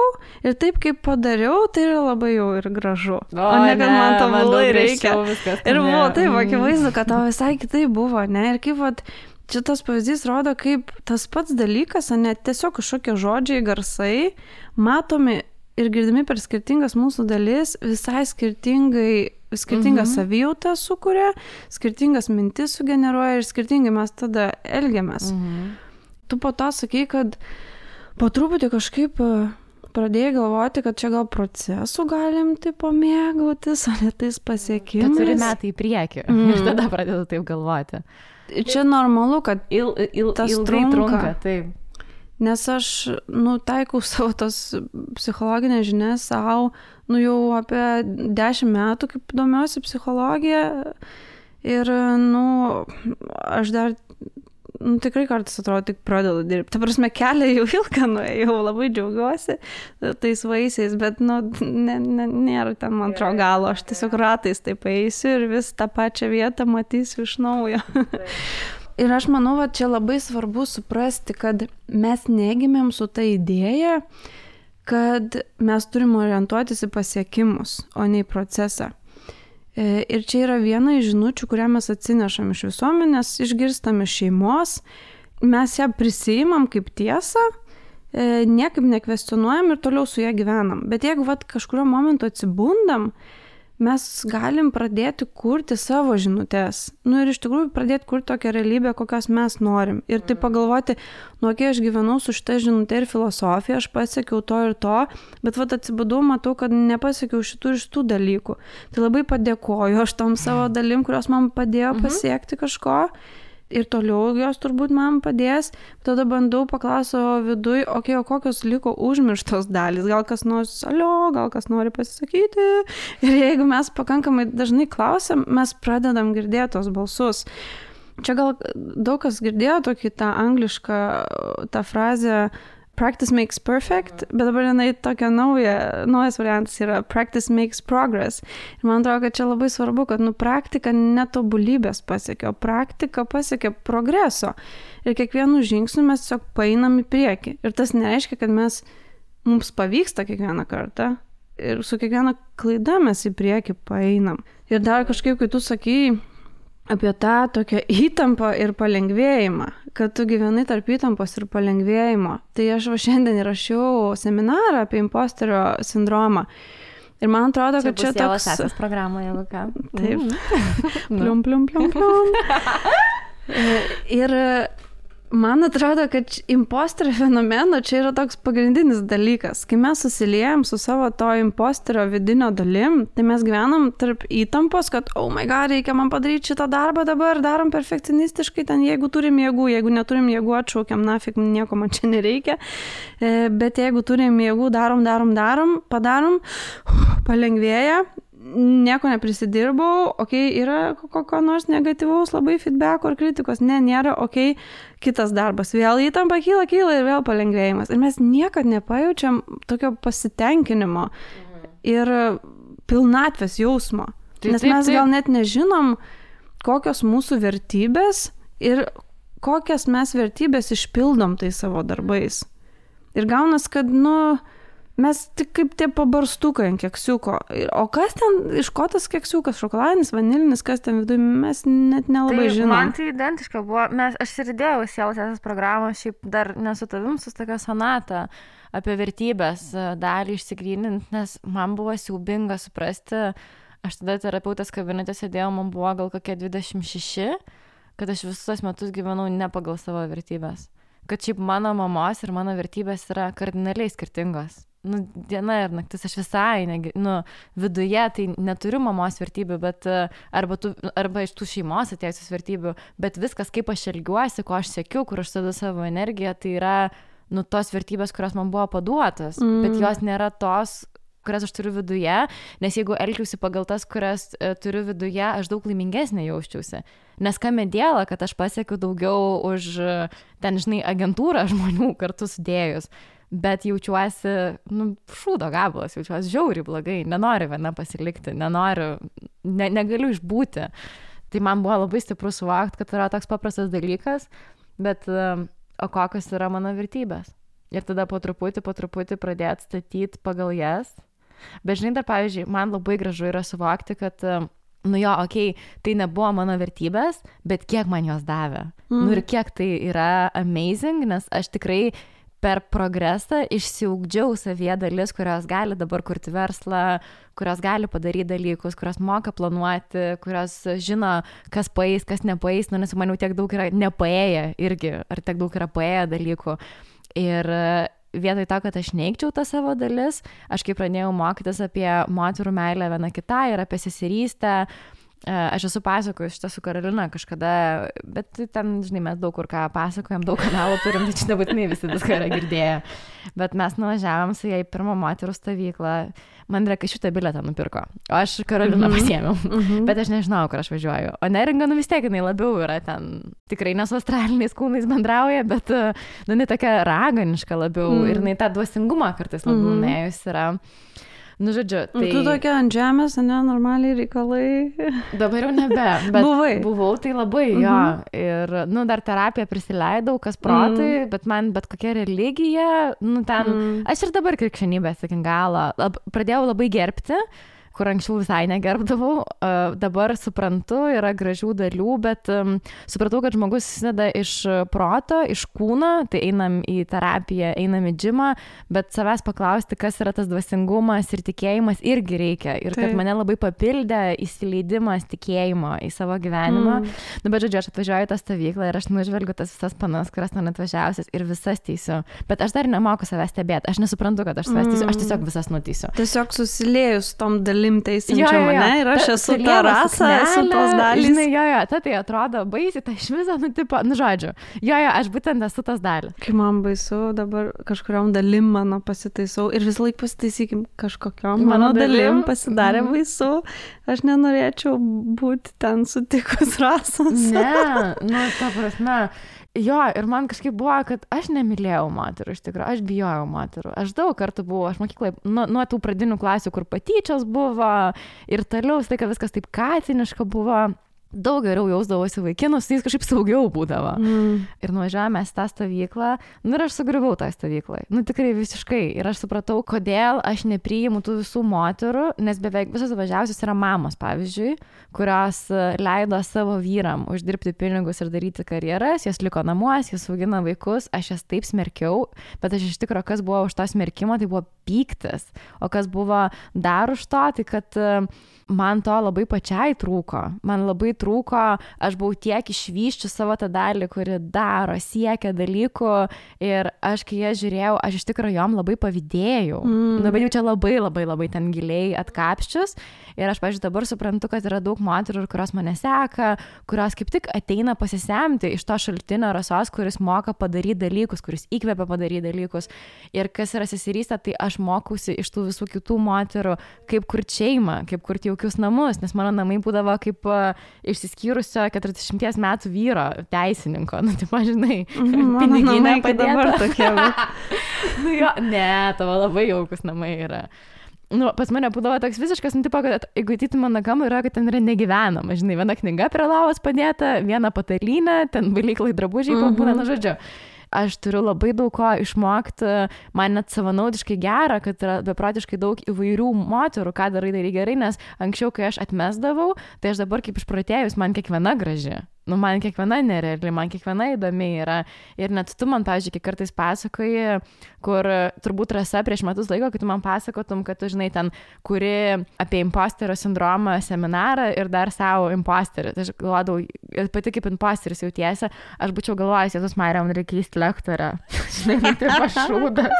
ir taip, kaip padariau, tai yra labai jau ir gražu. O ne, kad man to labai reikia. Ir buvo taip, akivaizdu, kad tau visai kitaip buvo, ne? Ir kaip vat, šitas pavyzdys rodo, kaip tas pats dalykas, ne tiesiog kažkokie žodžiai, garsai, matomi ir girdimi per skirtingas mūsų dalis, visai skirtingą savijautą sukuria, skirtingas mintis sugeneruoja ir skirtingai mes tada elgiamės. Tu po to sakai, kad po truputį kažkaip pradėjai galvoti, kad čia gal procesų galim tipo mėgautis, o ne tais pasiekimais. Kad turi metai į priekį ir tada pradedu taip galvoti. Čia normalu, kad tas trunka. Taip. Nes aš, taikau savo tos psichologinės žinias savo, jau apie 10 metų, kaip domiuosi psichologija. Ir, aš dar, tikrai kartais atrodo, tik pradedu dirbti. Ta prasme, kelią jau ilgą nuėjau, labai džiaugiuosi tais vaisiais, bet, nėra ten, man atrodo, galo. Aš tiesiog ratais taip eisiu ir vis tą pačią vietą matysiu iš naujo. Ir aš manau, va, čia labai svarbu suprasti, kad mes negimėm su ta idėja, kad mes turim orientuotis į pasiekimus, o ne į procesą. Ir čia yra viena iš žinučių, kurią mes atsinešam iš visuomenės, išgirstam iš šeimos, mes ją prisiimam kaip tiesą, niekaip nekvestionuojam ir toliau su ją gyvenam. Bet jeigu kažkurio momentu atsibundam, mes galim pradėti kurti savo žinutes. Ir iš tikrųjų pradėti kurti tokią realybę, kokios mes norim. Ir tai pagalvoti, kai aš gyvenau su šitą žinutę ir filosofiją, aš pasiekiau to ir to, bet atsibudau, matau, kad nepasiekiau šitų ir šitų dalykų. Tai labai padėkoju aš tom savo dalim, kurios man padėjo pasiekti kažko. Ir toliau jos turbūt man padės. Tada bandau paklausti savo viduj, o kokios liko užmirštos dalys. Gal kas nors gal kas nori pasisakyti. Ir jeigu mes pakankamai dažnai klausiam, mes pradedam girdėti tos balsus. Čia gal daug kas girdėjo tokį tą anglišką, tą frazę practice makes perfect, bet dabar jinai tokia naujas variantas yra practice makes progress. Ir man atrodo, kad čia labai svarbu, kad praktika netobulybės pasiekia, o praktika pasiekia progreso. Ir kiekvienu žingsniu mes tiesiog paeinam į priekį. Ir tas nereiškia, kad mums pavyksta kiekvieną kartą. Ir su kiekviena klaida mes į priekį paeinam. Ir dar kažkaip, kai tu sakai apie tą tokią įtampą ir palengvėjimą, kad tu gyvenai tarp įtampos ir palengvėjimo. Tai aš šiandien įrašiau seminarą apie imposterio sindromą. Ir man atrodo, kad čia toks... Čia bus Sesės programoje, jeigu ką. Taip. Plium. Ir man atrodo, kad imposterio fenomeno čia yra toks pagrindinis dalykas. Kai mes susiliejam su savo to imposterio vidinio dalim, tai mes gyvenam tarp įtampos, kad oh my god, reikia man padaryti šitą darbą dabar, darom perfekcionistiškai, ten jeigu turim jėgų, jeigu neturim jėgų, atšaukiam, nafik, nieko man čia nereikia. Bet jeigu turim jėgų, darom, padarom, palengvėja. Nieko neprisidirbau, yra kokio nors negatyvaus labai feedbacko ar kritikos, nėra, kitas darbas, vėl įtampa kyla ir vėl palengvėjimas. Ir mes niekad nepajaučiam tokio pasitenkinimo ir pilnatvės jausmo. Nes mes gal net nežinom, kokios mūsų vertybės ir kokias mes vertybės išpildom tai savo darbais. Ir gaunas, kad, mes tik kaip tie pabarstukai ant keksiuko. O kas ten, iš ko tas keksiukas, šokoladinis, vanilinis, kas ten viduje, mes net nelabai žinom. Man tai identiška buvo, aš ir įdėjau Sesės programą, šiaip dar nesu tavim, su tokia sonata apie vertybės dalį išsigrynint, nes man buvo siaubinga suprasti, aš tada terapeutės kabinete sėdėjau, man buvo gal kokie 26, kad aš visus metus gyvenau ne pagal savo vertybės. Kad šiaip mano mamos ir mano vertybės yra kardinaliai skirtingos. diena ir naktis, aš visai, viduje tai neturiu mamos vertybių, bet arba iš tų šeimos atėjusios vertybių, bet viskas, kaip aš elgiuosi, ko aš siekiu, kur aš dedu savo energiją, tai yra, tos vertybės, kurios man buvo paduotos, bet jos nėra tos, kurias aš turiu viduje, nes jeigu elgiausi pagal tas, kurias turiu viduje, aš daug laimingesnė jausčiausi. Nes kame dėlą, kad aš pasiekiu daugiau už ten, agentūrą žmonių kartu sudėjus. Bet jaučiuosi, šūdo gabalas, jaučiuosi žiauriai blogai, nenoriu viena pasilikti, negaliu išbūti. Tai man buvo labai stipru suvokti, kad yra toks paprastas dalykas, bet o kokios yra mano vertybės. Ir tada po truputį pradėti statyti pagal jas. Bet dar, pavyzdžiui, man labai gražu yra suvokti, kad, tai nebuvo mano vertybės, bet kiek man jos davė. Ir kiek tai yra amazing, nes aš tikrai per progresą išsiugdžiau savyje dalis, kurios gali dabar kurti verslą, kurios gali padaryti dalykus, kurios moka planuoti, kurios žino, kas paeis, kas nepaeis, nes man jau tiek daug yra nepaėję irgi, ar tiek daug yra paėję dalykų. Ir vietoj to, kad aš neigčiau tą savo dalis, aš kai pradėjau mokytis apie moterų meilę viena kitai ir apie seserystę, aš esu pasakojus šitą su Karolina kažkada, bet ten, mes daug kur ką pasakojam, daug kanalų turim, tai čia nebūtinai visi viską yra girdėję. Bet mes nuvažiavom su jai pirmą moterų stovyklą, man reikia šitą bilietą nupirko, o aš Karoliną pasiėmiau, bet aš nežinau, kur aš važiuoju. O neringa, vis tiek, jinai labiau yra ten, tikrai ne su astraliniais kūnais bendrauja, bet, jinai tokia raganiška labiau ir jinai tą dvasingumą kartais labiau nuėjus yra. Žodžiu, tai... Tu tokia ant žemės, normaliai reikalai. Dabar jau nebe, bet buvau tai labai, jo. Ir, dar terapiją prisileidau, kas protai, bet man bet kokia religija, aš ir dabar krikščionybės iki galo pradėjau labai gerbti, kur anksčiau visai negerbdavau, dabar suprantu, yra gražių dalių, bet supratau, kad žmogus susideda iš proto, iš kūno, tai einam į terapiją, einam į džimą, bet savęs paklausti, kas yra tas dvasingumas ir tikėjimas irgi reikia. Ir kad mane labai papildė įsileidimas tikėjimo į savo gyvenimą. Bet žodžiu, aš atvažiuoju į tą stovyklą ir aš nužvelgiu tas visas panas, kurias ten atvažiausias ir visas teisiu. Bet aš dar nemoku savęs stebėti, aš nesuprantu, kad aš savęs teisiu, aš tiesiog visas nuteisiu. Tiesiog susiliejus tom dalim teisinčia mane ir aš esu ta rasa, esu tos dalys. Tai atrodo baisiai, tai iš viso, žodžiu. Aš būtent esu tas dalis. Kai man baisu, dabar kažkuriam dalim mano pasitaisau ir vis laik pasitaisykim kažkokiam mano dalim pasidarė baisu. Aš nenorėčiau būti ten sutikus rasos. Ne, ta prasme. Ir man kažkaip buvo, kad aš nemylėjau moterų, iš tikrųjų, aš bijojau moterų. Aš daug kartų buvau, aš mokyklai, nuo tų pradinių klasių, kur patyčios buvo ir toliau, tai kad viskas taip katiniška buvo. Daug geriau jausdavosi vaikinus, jis kažkaip saugiau būdavo. Ir nuvažiavome į tą stovyklą, ir aš sugriuvau tą stovyklą. Tikrai visiškai. Ir aš supratau, kodėl aš nepriimu tų visų moterų, nes beveik visos važiavusios yra mamos, pavyzdžiui, kurios leido savo vyram uždirbti pinigus ir daryti karjeras, jos liko namuose, jos augina vaikus, aš jas taip smerkiau, bet aš iš tikrųjų, kas buvo už to smerkimo, tai buvo pyktis. O kas buvo dar už to, tai kad man to labai pačiai trūko. Man labai trūko, aš buvau tiek išvyščiu savo tą dalį, kuri daro, siekia dalykų ir aš, kai ją žiūrėjau, aš iš tikrųjų jom labai pavydėjau. Bet jau čia labai ten giliai atkapščius ir aš, pavyzdžiui, dabar suprantu, kad yra daug moterų, kurios mane seka, kurios kaip tik ateina pasisemti iš to šaltinio rasos, kuris moka padaryti dalykus, kuris įkvepia padaryti dalykus. Ir kas yra seserystė, tai aš mokausi iš tų visų kitų moterų, kaip kurti šeimą, kaip kurti jaukius namus, nes mano namai būdavo kaip išsiskyrusio 40 metų vyro teisininko, žinai, piniginė padėta. Ne, tavo labai jaukus namai yra. Pas mane būdavo toks visiškas, kad jeigu ateitų mano kambarį, yra, kad ten yra negyvenama, žinai, viena knyga prie lavos padėta, viena patalynė, ten valyklai drabužiai pabūna, žodžiu. Aš turiu labai daug ko išmokti, man net savanaudiškai gera, kad yra beprotiškai daug įvairių moterų, ką darai gerai, nes anksčiau, kai aš atmesdavau, tai aš dabar kaip išprotėjus, man kiekviena graži. Nu, man kiekviena nereali, man kiekviena įdomi yra. Ir net tu man, pavyzdžiui, kiek kartais pasakoji, kur turbūt Rasa prieš metus laiko, kai tu man pasakotum, kad tu, žinai, ten kuri apie imposterio sindromą seminarą ir dar savo imposterį. Tai aš galvodavau, pati kaip imposteris jautiesi, aš būčiau galvojęs, Jėzus Marija, man reikia keisti lektorę. Žinai, tai pašūdas,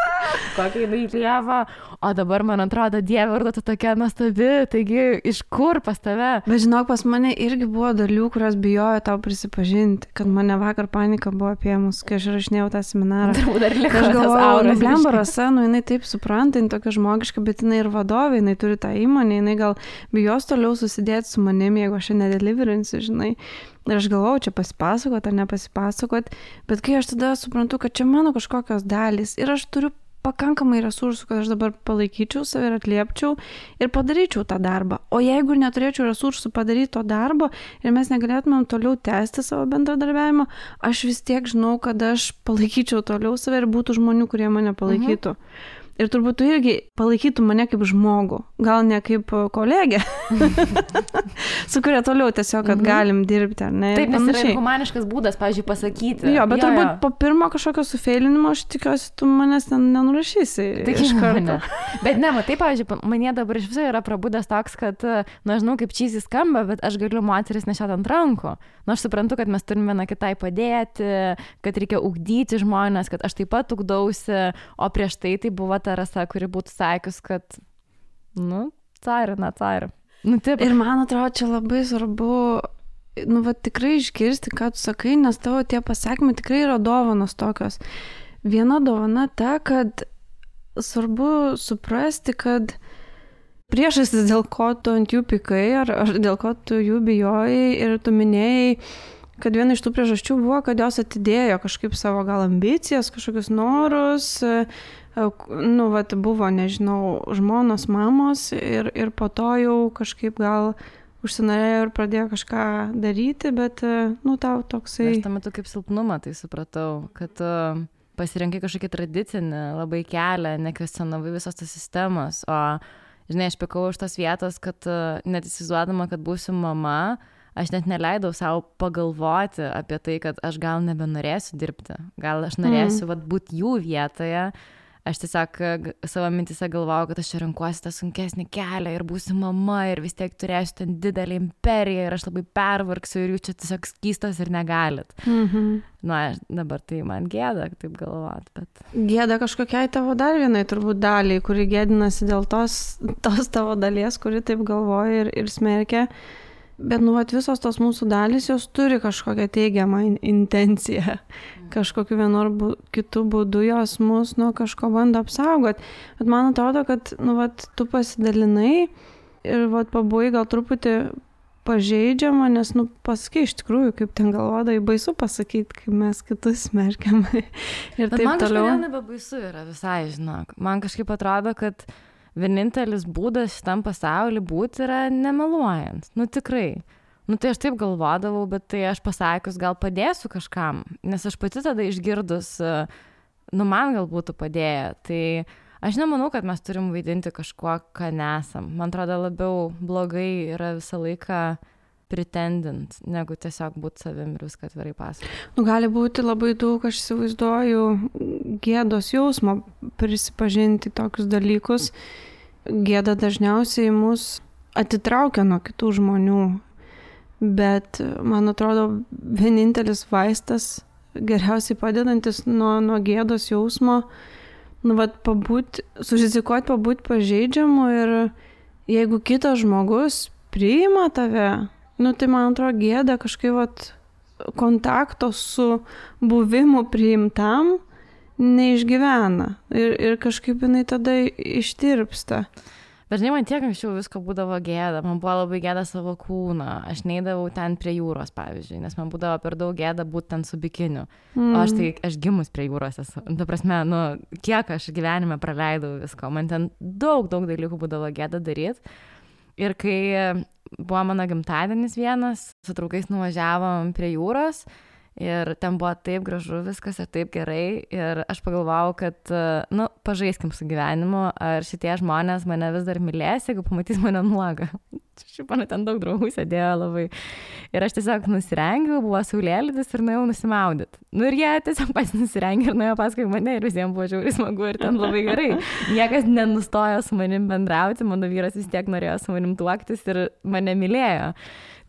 kokia jinai lieva. O dabar man atrodo, Dieve, ar tu tokia nuostabi, taigi iš kur pas tave? Bet žinok, pas mane irgi buvo dalių, kurios bijojo tau prisipažinti, kad mane vakar panika buvo apėmus, kai aš rašinėjau tą seminarą. Aš galvojau, blemba Rasa, nu jinai taip supranta, jinai tokia žmogiška, bet jinai ir vadovė, jinai turi tą įmonę, jinai gal bijos toliau susidėti su manimi, jeigu aš nedeliverinsiu, žinai. Ir aš galvojau, čia pasipasakot ar nepasipasakot, bet kai aš tada suprantu, kad čia mano kažkokios dalys ir aš turiu pakankamai resursų, kad aš dabar palaikyčiau save ir atliepčiau ir padaryčiau tą darbą. O jeigu neturėčiau resursų padaryti to darbo ir mes negalėtumėm toliau tęsti savo bendradarbiavimą, aš vis tiek žinau, kad aš palaikyčiau toliau save ir būtų žmonių, kurie mane palaikytų. Ir turbūt tu irgi palaikytų mane kaip žmogų, gal ne kaip kolegę, su kuria toliau tiesiog, kad galim dirbti, ar ne? Taip, nes yra humaniškas būdas, pavyzdžiui, pasakyti. Jo, bet turbūt po pirmo kažkokio sufeilinimo aš tikiuosi, tu manęs ten nenurašysi iš karto. Bet ne, matai, pavyzdžiui, mane dabar iš viso yra prabudęs toks, kad, na, žinau, kaip čysi skamba, bet aš galiu moteris nešiot ant rankų. Na, aš suprantu, kad mes turime viena kitai padėti, kad reikia ugdyti žmonės, kad aš taip pat ugdausi, o prieš tai buvo ta Rasa, kuri būtų sakius, kad, nu, caira. Nu, taip. Ir man atrodo, čia labai svarbu, nu, va, tikrai išgirsti, ką tu sakai, nes tavo tie pasakymai tikrai yra dovanos tokios. Viena dovana ta, kad svarbu suprasti, kad priežastis, dėl ko tu ant jų pykai, ar dėl ko tu jų bijojai ir tu minėjai, kad viena iš tų priežasčių buvo, kad jos atidėjo kažkaip savo gal ambicijas, kažkokius norus, nu, vat, buvo, nežinau, žmonos, mamos ir po to jau kažkaip gal užsinorėjo ir pradėjo kažką daryti, bet, nu, tau toksai... Aš tam metu kaip silpnumą tai supratau, kad pasirinkai kažkokį tradicinį labai kelią, nekvestionavai visos tos sistemos, o, žinai, aš pikau iš tos vietos, kad net įsivaizduodama, kad būsiu mama, aš net neleidau savo pagalvoti apie tai, kad aš gal nebenorėsiu dirbti, gal aš norėsiu vat, būti jų vietoje. Aš tiesiog savo mintise galvojau, kad aš čia renkuosi tą sunkesnį kelią ir būsiu mama ir vis tiek turėsiu ten didelį imperiją ir aš labai pervargsiu ir jūs čia tiesiog skystos ir negalit. Na, dabar tai man gėda taip galvoti, bet... Gėda kažkokiai tavo dar vienai turbūt daliai, kuri gėdinasi dėl tos tavo dalies, kuri taip galvoja ir smerkia. Bet, nu, vat, visos tos mūsų dalys, jos turi kažkokią teigiamą intenciją. Kažkokiu vienu ar kitu būdu jos mus nuo kažko bando apsaugoti. Bet man atrodo, kad, nu, vat, tu pasidalinai ir, vat, pabuvai gal truputį pažeidžiama, nes, nu, pasakai iš tikrųjų, kaip ten galvodai, baisu pasakyti, kaip mes kitus smerkiam. Ir bet taip man toliau. Man nebebaisu yra visai, žinok. Man kažkaip atrodo, kad vienintelis būdas šitam pasauliu būti yra nemeluojant. Nu tikrai. Nu tai aš taip galvodavau, bet tai aš pasakius gal padėsiu kažkam, nes aš pati tada išgirdus, nu man gal būtų padėję. Tai aš nemanau, kad mes turim vaidinti kažkuo, ką nesam. Man atrodo labiau blogai yra visą laiką pretendint, negu tiesiog būti savim ir viską atvirai pasakoti. Nu, gali būti labai daug, aš įsivaizduoju, gėdos jausmo prisipažinti tokius dalykus. Gėda dažniausiai mus atitraukia nuo kitų žmonių, bet man atrodo vienintelis vaistas, geriausiai padedantis nuo gėdos jausmo, nu, vat, surizikuoti pabūti pažeidžiamu ir jeigu kitas žmogus priima tave, nu, tai man atrodo gėda kažkaip vat, kontakto su buvimu priimtam neišgyvena ir kažkaip jinai tada ištirpsta. Bet žinai, man tiek anksčiau visko būdavo gėda, man buvo labai gėda savo kūną, aš neidavau ten prie jūros, pavyzdžiui, nes man būdavo per daug gėda būti ten su bikiniu, o aš gimus prie jūros esu, ta prasme, nu, kiek aš gyvenime praleidau visko, man ten daug dalykų būdavo gėda daryti ir kai buvo mano gimtadienis vienas, su draugais nuvažiavom prie jūros ir ten buvo taip gražu viskas ir taip gerai ir aš pagalvojau, kad, nu, pažaiskim su gyvenimu, ar šitie žmonės mane vis dar mylės, jeigu pamatys mane nuogą. Šiaip man ten daug draugų sėdėjo labai. Ir aš tiesiog nusirengiau, buvo saulėlydis ir nuėjau nusimaudyti. Nu ir jie tiesiog pats nusirengė ir nuėjo paskui mane ir visiems buvo žiauriai smagu ir ten labai gerai. Niekas nenustojo su manim bendrauti, mano vyras vis tiek norėjo su manim tuoktis ir mane mylėjo.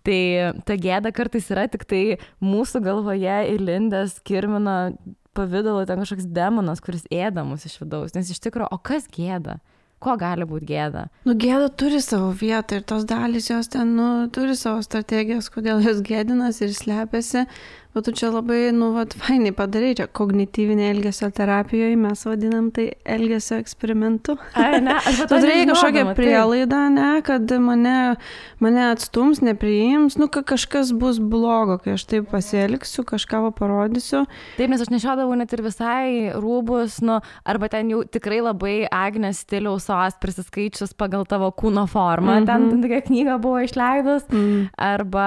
Tai ta gėda kartais yra tik tai mūsų galvoje įlindęs kirmino pavidalo ten kažkoks demonas, kuris ėda mus iš vidaus. Nes iš tikrųjų, o kas gėda? Ko gali būti gėda? Nu, gėda turi savo vietą ir tos dalys jos ten, turi savo strategijas, kodėl jos gėdinas ir slepiasi. Bet tu čia labai, fainai padarai, čia kognityvinė elgesio terapijoje, mes vadinam tai elgesio eksperimentu. Ai, ne, aš tu turėjai kažkokią prielaidą, ne, kad mane atstums, nepriims, kažkas bus blogo, kai aš taip pasielgsiu, kažką parodysiu. Taip, nes aš nešiodavau net ir visai rūbus, arba ten jau tikrai labai Agnės stiliaus sos prisiskaičius pagal tavo kūno formą, ten tokia knyga buvo išleidus, arba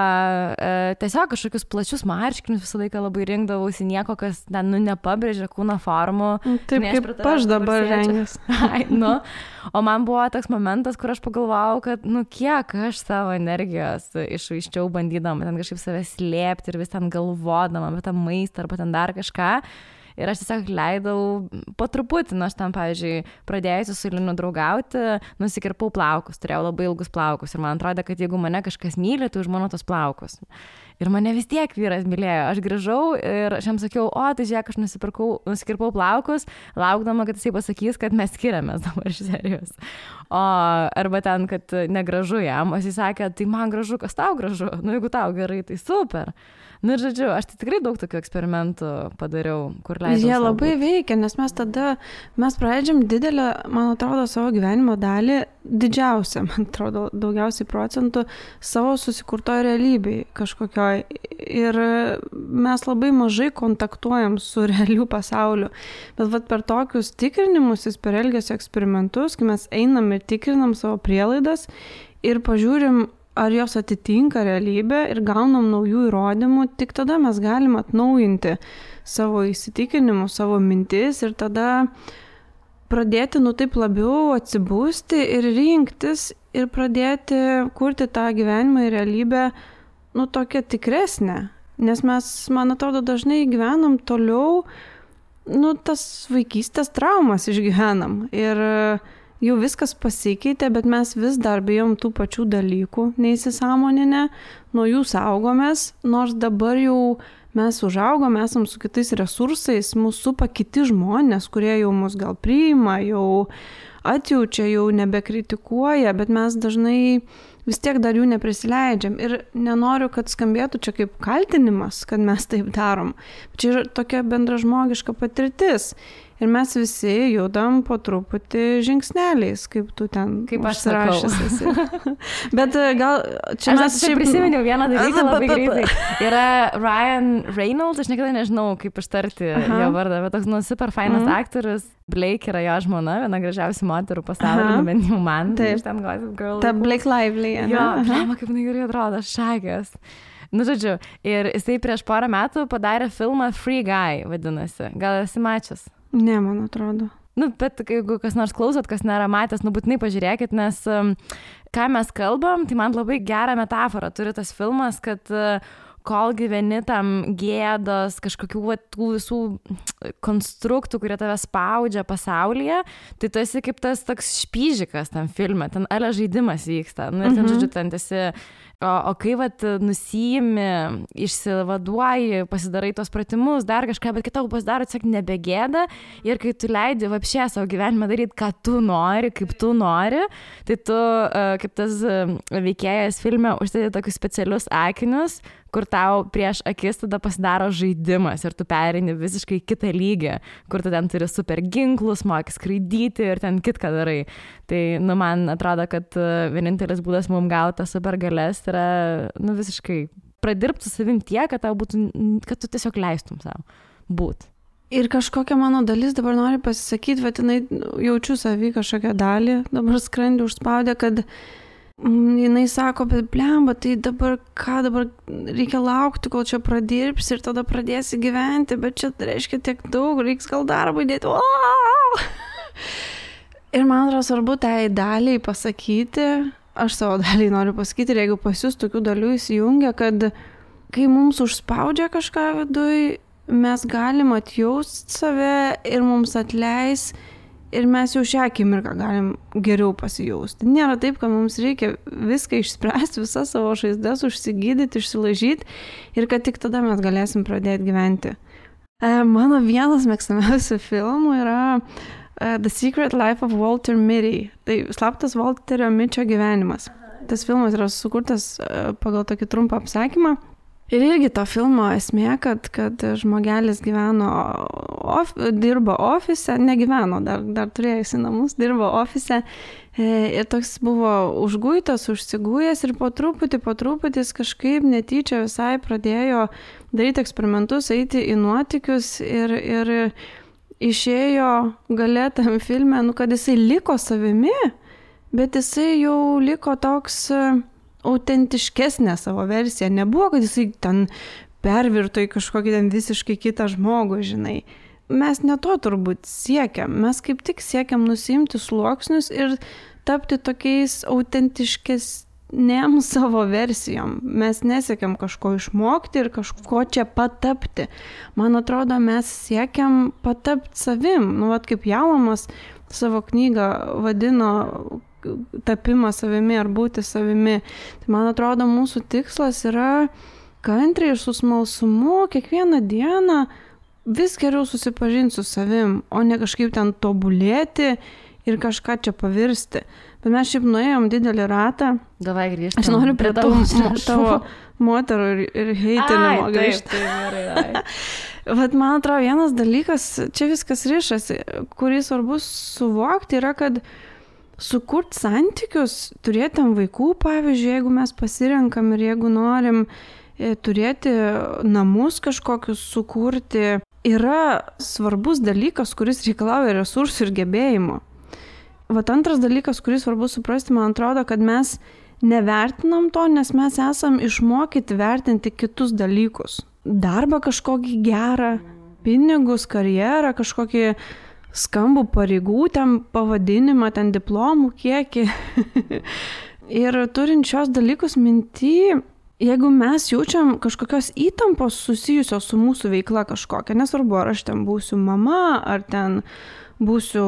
tiesiog kažkokius plačius marškinius visą laiką labai rinkdavausi, nieko, kas ten, nepabrėžia kūno formų. Taip, kaip aš dabar rengiuosi. O man buvo toks momentas, kur aš pagalvojau, kad, kiek aš savo energijos išvaiščiau bandydama ten kažkaip save slėpti ir vis ten galvodama apie tą maistą arba ten dar kažką. Ir aš tiesiog leidau po truputį, aš ten, pavyzdžiui, pradėjusi su Linu draugauti, nusikirpau plaukus, turėjau labai ilgus plaukus ir man atrodė, kad jeigu mane kažkas myli, tai už mano tos plaukus. Ir mane vis tiek vyras mylėjo. Aš grįžau ir aš jam sakiau, tai žiūrėk, aš nusikirpau plaukus, laukdama, kad jisai pasakys, kad mes skiriamės dabar iš serijos. Arba ten, kad negražu jam, o jisai sakė, tai man gražu, kas tau gražu, jeigu tau gerai, tai super. Ir žodžiu, aš tai tikrai daug tokių eksperimentų padariau, kur leidau. Jie labai veikia, nes mes praleidžiam didelę, man atrodo, savo gyvenimo dalį, didžiausią, man atrodo, daugiausiai procentų savo susikurtoje realybėje kažkokioj. Ir mes labai mažai kontaktuojam su realiu pasauliu. Bet per tokius tikrinimus, per elgesio eksperimentus, kai mes einam ir tikrinam savo prielaidas ir pažiūrim, ar jos atitinka realybę ir gaunam naujų įrodymų, tik tada mes galim atnaujinti savo įsitikinimus, savo mintis ir tada pradėti taip labiau atsibūsti ir rinktis ir pradėti kurti tą gyvenimą ir realybę, tokią tikresnę. Nes mes, man atrodo, dažnai gyvenam toliau, tas vaikystės traumas išgyvenam ir jau viskas pasikeitė, bet mes vis dar bijom tų pačių dalykų, neįsisąmoninę, nuo jų saugomės, nors dabar jau mes užaugom, esam su kitais resursais, mūsų supa kiti žmonės, kurie jau mus gal priima, jau atjaučia, jau nebekritikuoja, bet mes dažnai vis tiek dar jų neprisileidžiam. Ir nenoriu, kad skambėtų čia kaip kaltinimas, kad mes taip darom. Čia yra tokia bendražmogiška patirtis. Ir mes visi judam po truputį žingsneliais, kaip tu ten užsirašęs. Bet gal čia aš prisiminiau vieną dalyką labai greitai. Yra Ryan Reynolds, aš niekada nežinau, kaip ištarti jo vardą, bet toks super fainas aktorius. Blake yra jo žmona, viena gražiausių moterų pasaulyje, bent jau man. Taip, ta Blake Lively. Jo, kaip jinai gerai atrodo, šakės. Žodžiu, ir jisai prieš porą metų padarė filmą Free Guy, vadinasi. Gal esi mačias? Ne, man atrodo. Bet jeigu kas nors klausot, kas nėra matęs, būtinai pažiūrėkit, nes ką mes kalbam, tai man labai gerą metaforą turi tas filmas, kad kol gyveni tam gėdos, kažkokių tų visų konstruktų, kurie tave spaudžia pasaulyje, tai tu esi kaip tas toks špyžikas tam filme, ten ale žaidimas vyksta. Ir ten, žodžiu, ten esi, o kai nusiimi, išsivaduoji, pasidarai tos pratimus, dar kažką, bet kitau pasidaro tiesiog nebegėda ir kai tu leidi vapšė savo gyvenimą daryti, ką tu nori, kaip tu nori, tai tu, kaip tas veikėjas filme, užsidedi tokius specialius akinius, kur tau prieš akis tada pasidaro žaidimas ir tu pereini visiškai kitą lygį, kur tu ten turi super ginklus, moki skraidyti ir ten kitką darai. Tai, man atrodo, kad vienintelis būdas mums gauti super galės yra, visiškai pradirbti su savim tiek, kad tau būtų, kad tu tiesiog leistum savo būt. Ir kažkokia mano dalis dabar nori pasisakyti, bet jinai jaučiu savį kažkokią dalį, dabar skrandį užspaudė, kad jinai sako, bet blemba, tai dabar reikia laukti, kol čia pradirbsi ir tada pradėsi gyventi, bet čia reiškia tiek daug, reiks gal darbą įdėti. Ir man atrodo svarbu tai daliai pasakyti, aš savo dalį noriu pasakyti, ir jeigu pas jūs tokių dalių įsijungia, kad kai mums užspaudžia kažką viduj, mes galim atjaust save ir mums atleis ir mes jau šią akimirką galim geriau pasijausti. Nėra taip, kad mums reikia viską išspręsti, visas savo žaizdas, užsigydyti, išsilaižyti ir kad tik tada mes galėsim pradėti gyventi. Mano vienas mėgstamiausių filmų yra The Secret Life of Walter Mitty. Tai slaptas Walterio Mitčio gyvenimas. Tas filmas yra sukurtas pagal tokį trumpą apsakymą. Ir irgi to filmo esmė, kad žmogelis dirbo ofise, negyveno, dar turėjusi namus, dirbo ofise ir toks buvo užguitas, užsigujęs ir po truputį jis kažkaip netyčia visai pradėjo daryti eksperimentus, eiti į nuotykius ir išėjo gale tam filme, kad jisai liko savimi, bet jisai jau liko toks autentiškesnė savo versija. Nebuvo, kad jisai ten pervirto į kažkokį ten visiškai kitą žmogų, žinai. Mes ne to turbūt siekiam. Mes kaip tik siekiam nusiimti sluoksnius ir tapti tokiais autentiškesnėm savo versijom. Mes nesiekiam kažko išmokti ir kažko čia patapti. Man atrodo, mes siekiam patapti savim. Vat kaip Jaumas savo knygą vadino tapimą savimi ar būti savimi. Tai man atrodo, mūsų tikslas yra kantriai ir su smalsumu kiekvieną dieną vis geriau susipažinti su savim, o ne kažkaip ten tobulėti ir kažką čia pavirsti. Bet mes šiaip nuėjom didelį ratą. Davai grįžtam. Aš noriu prie tavo moterų ir heitinimo grįžti. Vat man atrodo, vienas dalykas, čia viskas rišasi, kurį svarbu suvokti, yra, kad sukurt santykius, turėti vaikų, pavyzdžiui, jeigu mes pasirenkam ir jeigu norim turėti namus kažkokius sukurti, yra svarbus dalykas, kuris reikalauja resursų ir gebėjimo. Vat antras dalykas, kurį svarbu suprasti, man atrodo, kad mes nevertinam to, nes mes esam išmokyti vertinti kitus dalykus. Darbą kažkokį gerą, pinigus, karjerą, kažkokį skambų pareigų, ten pavadinimą, ten diplomų kiekį. Ir turint šios dalykus minty, jeigu mes jaučiam kažkokios įtampos susijusios su mūsų veikla kažkokia, nesvarbu, ar aš ten būsiu mama, ar ten būsiu,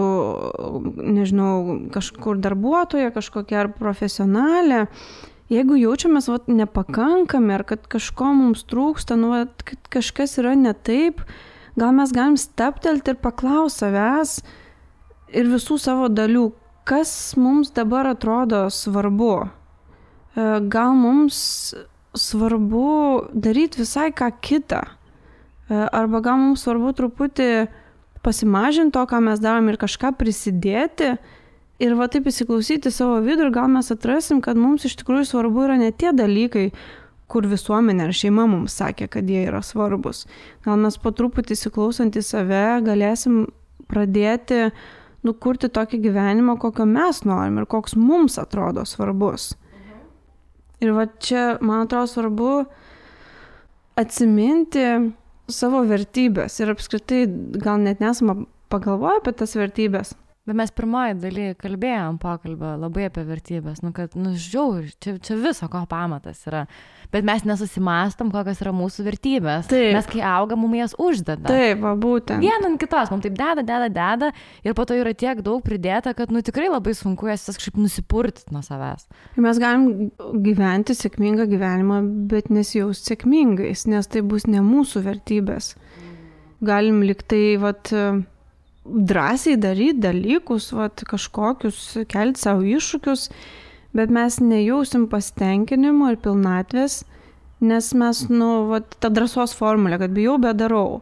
nežinau, kažkur darbuotoja, kažkokia ar profesionalė, jeigu jaučiamės nepakankami, ar kad kažko mums trūksta, kad kažkas yra ne taip, gal mes galim stabtelti ir paklausti savęs ir visų savo dalių, kas mums dabar atrodo svarbu. Gal mums svarbu daryti visai ką kitą. Arba gal mums svarbu truputį pasimažinti to, ką mes darom ir kažką prisidėti. Ir taip įsiklausyti savo vidų ir gal mes atrasim, kad mums iš tikrųjų svarbu yra ne tie dalykai, kur visuomenė ar šeima mums sakė, kad jie yra svarbus. Gal mes po truputį įsiklausant į save galėsim pradėti kurti tokį gyvenimą, kokio mes norim ir koks mums atrodo svarbus. Ir čia, man atrodo, svarbu atsiminti savo vertybės ir apskritai gal net nesame pagalvoję apie tas vertybės. Bet mes pirmoji daly kalbėjom pokalbio labai apie vertybės, kad, žiauri, čia viso ko pamatas yra. Bet mes nesusimąstom, kokios yra mūsų vertybės. Taip. Mes kai augam, mums jas uždeda. Taip, būtent. Vieną ant kitos, mums taip deda ir po to yra tiek daug pridėta, kad tikrai labai sunku jas kažkaip nusipurtyti nuo savęs. Mes galim gyventi sėkmingą gyvenimą, bet nesijausti sėkmingais, nes tai bus ne mūsų vertybės. Galim liktai, drąsiai daryti dalykus, kažkokius, kelti savo iššūkius, bet mes nejausim pasitenkinimo ir pilnatvės, nes mes, ta drąsos formulė, kad bijau, bet darau.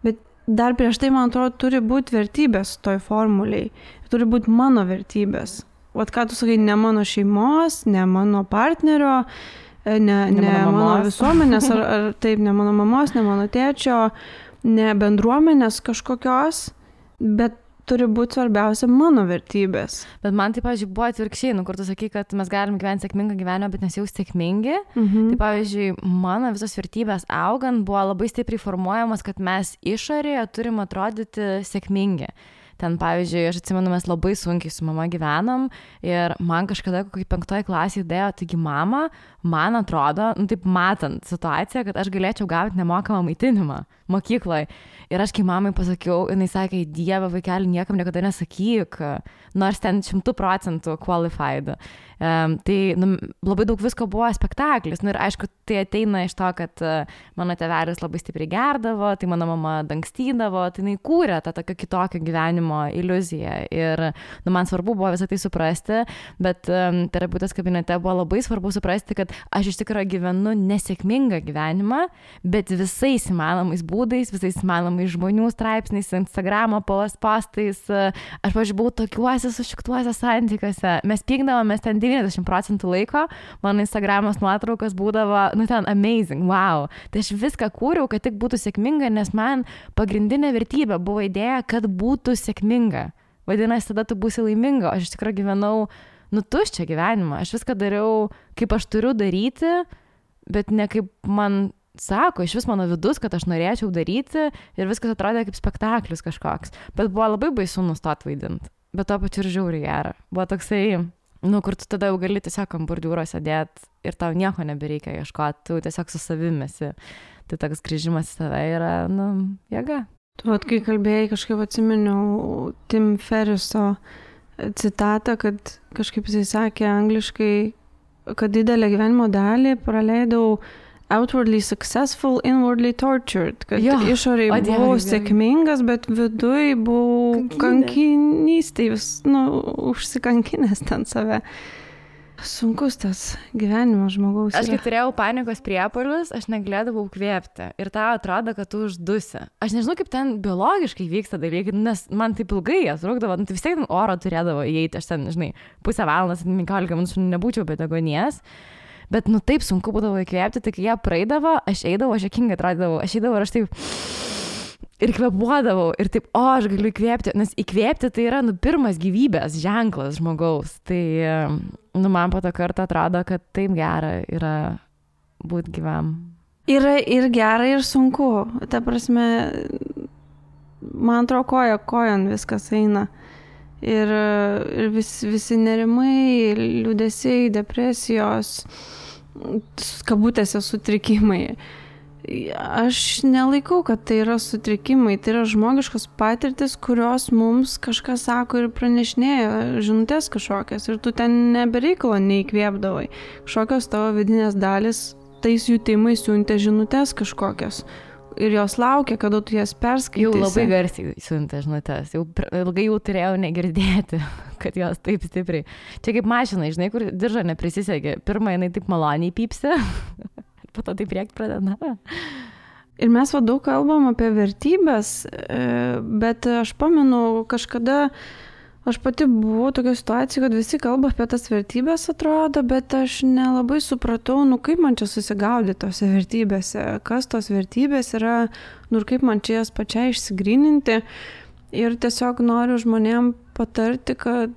Bet dar prieš tai, man atrodo, turi būti vertybės toj formuliai. Turi būti mano vertybės. Ką tu sakai, ne mano šeimos, ne mano partnerio, ne mano visuomenės, ar taip, ne mano mamos, ne mano tėčio, ne bendruomenės kažkokios, bet turi būti svarbiausia mano vertybės. Bet man tai, pavyzdžiui, buvo atvirkščiai, kur tu sakai, kad mes galim gyventi sėkmingą gyvenimą, bet nesijausti sėkmingi. Tai, pavyzdžiui, mano visos vertybės augant buvo labai stipriai formuojamas, kad mes išorėje turim atrodyti sėkmingi. Ten, pavyzdžiui, aš atsimenu, mes labai sunkiai su mama gyvenom ir man kažkada kokiai 5 klasėje dėjo, taigi mama, man atrodo, taip matant situaciją, kad aš galėčiau gauti nemokamą maitinimą mokykloje. Ir aš kai mamai pasakiau, jinai sakė, Dieve, vaikeli, niekam niekada nesakyk, nors ten 100% qualified. Tai labai daug visko buvo spektaklis. Ir aišku, tai ateina iš to, kad mano tėvelis labai stipriai gerdavo, tai mano mama dangstydavo, tai jinai kūrė tą tokio kitokio gyvenimo iliuziją. Ir man svarbu buvo visą tai suprasti, bet terapeutės kabinete buvo labai svarbu suprasti, kad aš iš tikrųjų gyvenu nesėkmingą gyvenimą, bet visais įmanomais būdais, visais įmanomais žmonių straipsniais, Instagramo postais. Aš, pavyzdžiui, buvau tokiuose sušiktuose santykiuose. Mes pykdavomės ten 90% laiko, mano Instagramos nuotraukos būdavo, ten amazing, wow. Tai aš viską kūriau, kad tik būtų sėkminga, nes man pagrindinė vertybė buvo idėja, kad būtų sėkminga. Vadinasi, tada tu būsi laiminga. Aš iš tikrųjų gyvenau, tuščią gyvenimą. Aš viską dariau, kaip aš turiu daryti, bet ne kaip man sako, iš vis mano vidus, kad aš norėčiau daryti ir viskas atrodė kaip spektaklis kažkoks. Bet buvo labai baisu nustot vaidinti. Bet to pačiu ir žiauriai gera. Buvo toksai, kur tu tada jau gali tiesiog ant bordiūro sėdėti ir tau nieko nebereikia ieškoti, tu tiesiog su savimesi. Tai toks grįžimas į save yra, jėga. Tu kai kalbėjai, kažkaip atsiminiau Tim Ferriso citatą, kad kažkaip jisai sakė angliškai, kad didelę gyvenimo dalį praleidau outwardly successful, inwardly tortured. Kad išoriai buvau sėkmingas, bet viduj buvau kankinystėj, užsikankinęs ten save. Sunkus tas gyvenimas žmogaus. Aš kai turėjau panikos priepuolius, aš negalėdavau kvėpti. Ir tau atrodo, kad tu uždusi. Aš nežinau, kaip ten biologiškai vyksta dalykai, nes man taip ilgai jas rūkdavo, tai vis tiek oro turėdavo įeiti, aš ten, pusę valandos, 15 minučių nebūčiau be deguonies. Bet taip sunku būdavo įkvėpti, tai kai jie praeidavo, aš eidavau, aš juokingai atrodydavau, aš eidavau ir aš taip ir kvėpuodavau ir taip, aš galiu įkvėpti, nes įkvėpti tai yra pirmas gyvybės ženklas žmogaus. Tai man po to kartą atrodo, kad taip gera yra būti gyvam. Yra ir gera, ir sunku. Ta prasme, man atrodo, kojon viskas eina. Ir visi nerimai, liūdesiai, depresijos, kabutėse sutrikimai. Aš nelaikau, kad tai yra sutrikimai, tai yra žmogiškos patirtis, kurios mums kažkas sako ir pranešinėja žinutės kažkokias. Ir tu ten nebereikalo neįkvėpdavai. Kažkokios tavo vidinės dalis tais jutimais siuntė žinutės kažkokias. Ir jos laukia, kada tu jas perskaitysi. Jau labai garsiai siuntė žinutės. Jau ilgai jau turėjau negirdėti, kad jos taip stipriai. Čia kaip mašina, kur diržą neprisisegė. Pirmą jinai taip maloniai pypsi, po to taip rėkt pradeda. Ir mes daug kalbam apie vertybės, bet aš pamenu kažkada, aš pati buvau tokio situacijų, kad visi kalba apie tas vertybės atrodo, bet aš nelabai supratau, kaip man čia susigaudyti tose vertybėse, kas tos vertybės yra, ir kaip man čia jas pačiai išsigryninti. Ir tiesiog noriu žmonėm patarti, kad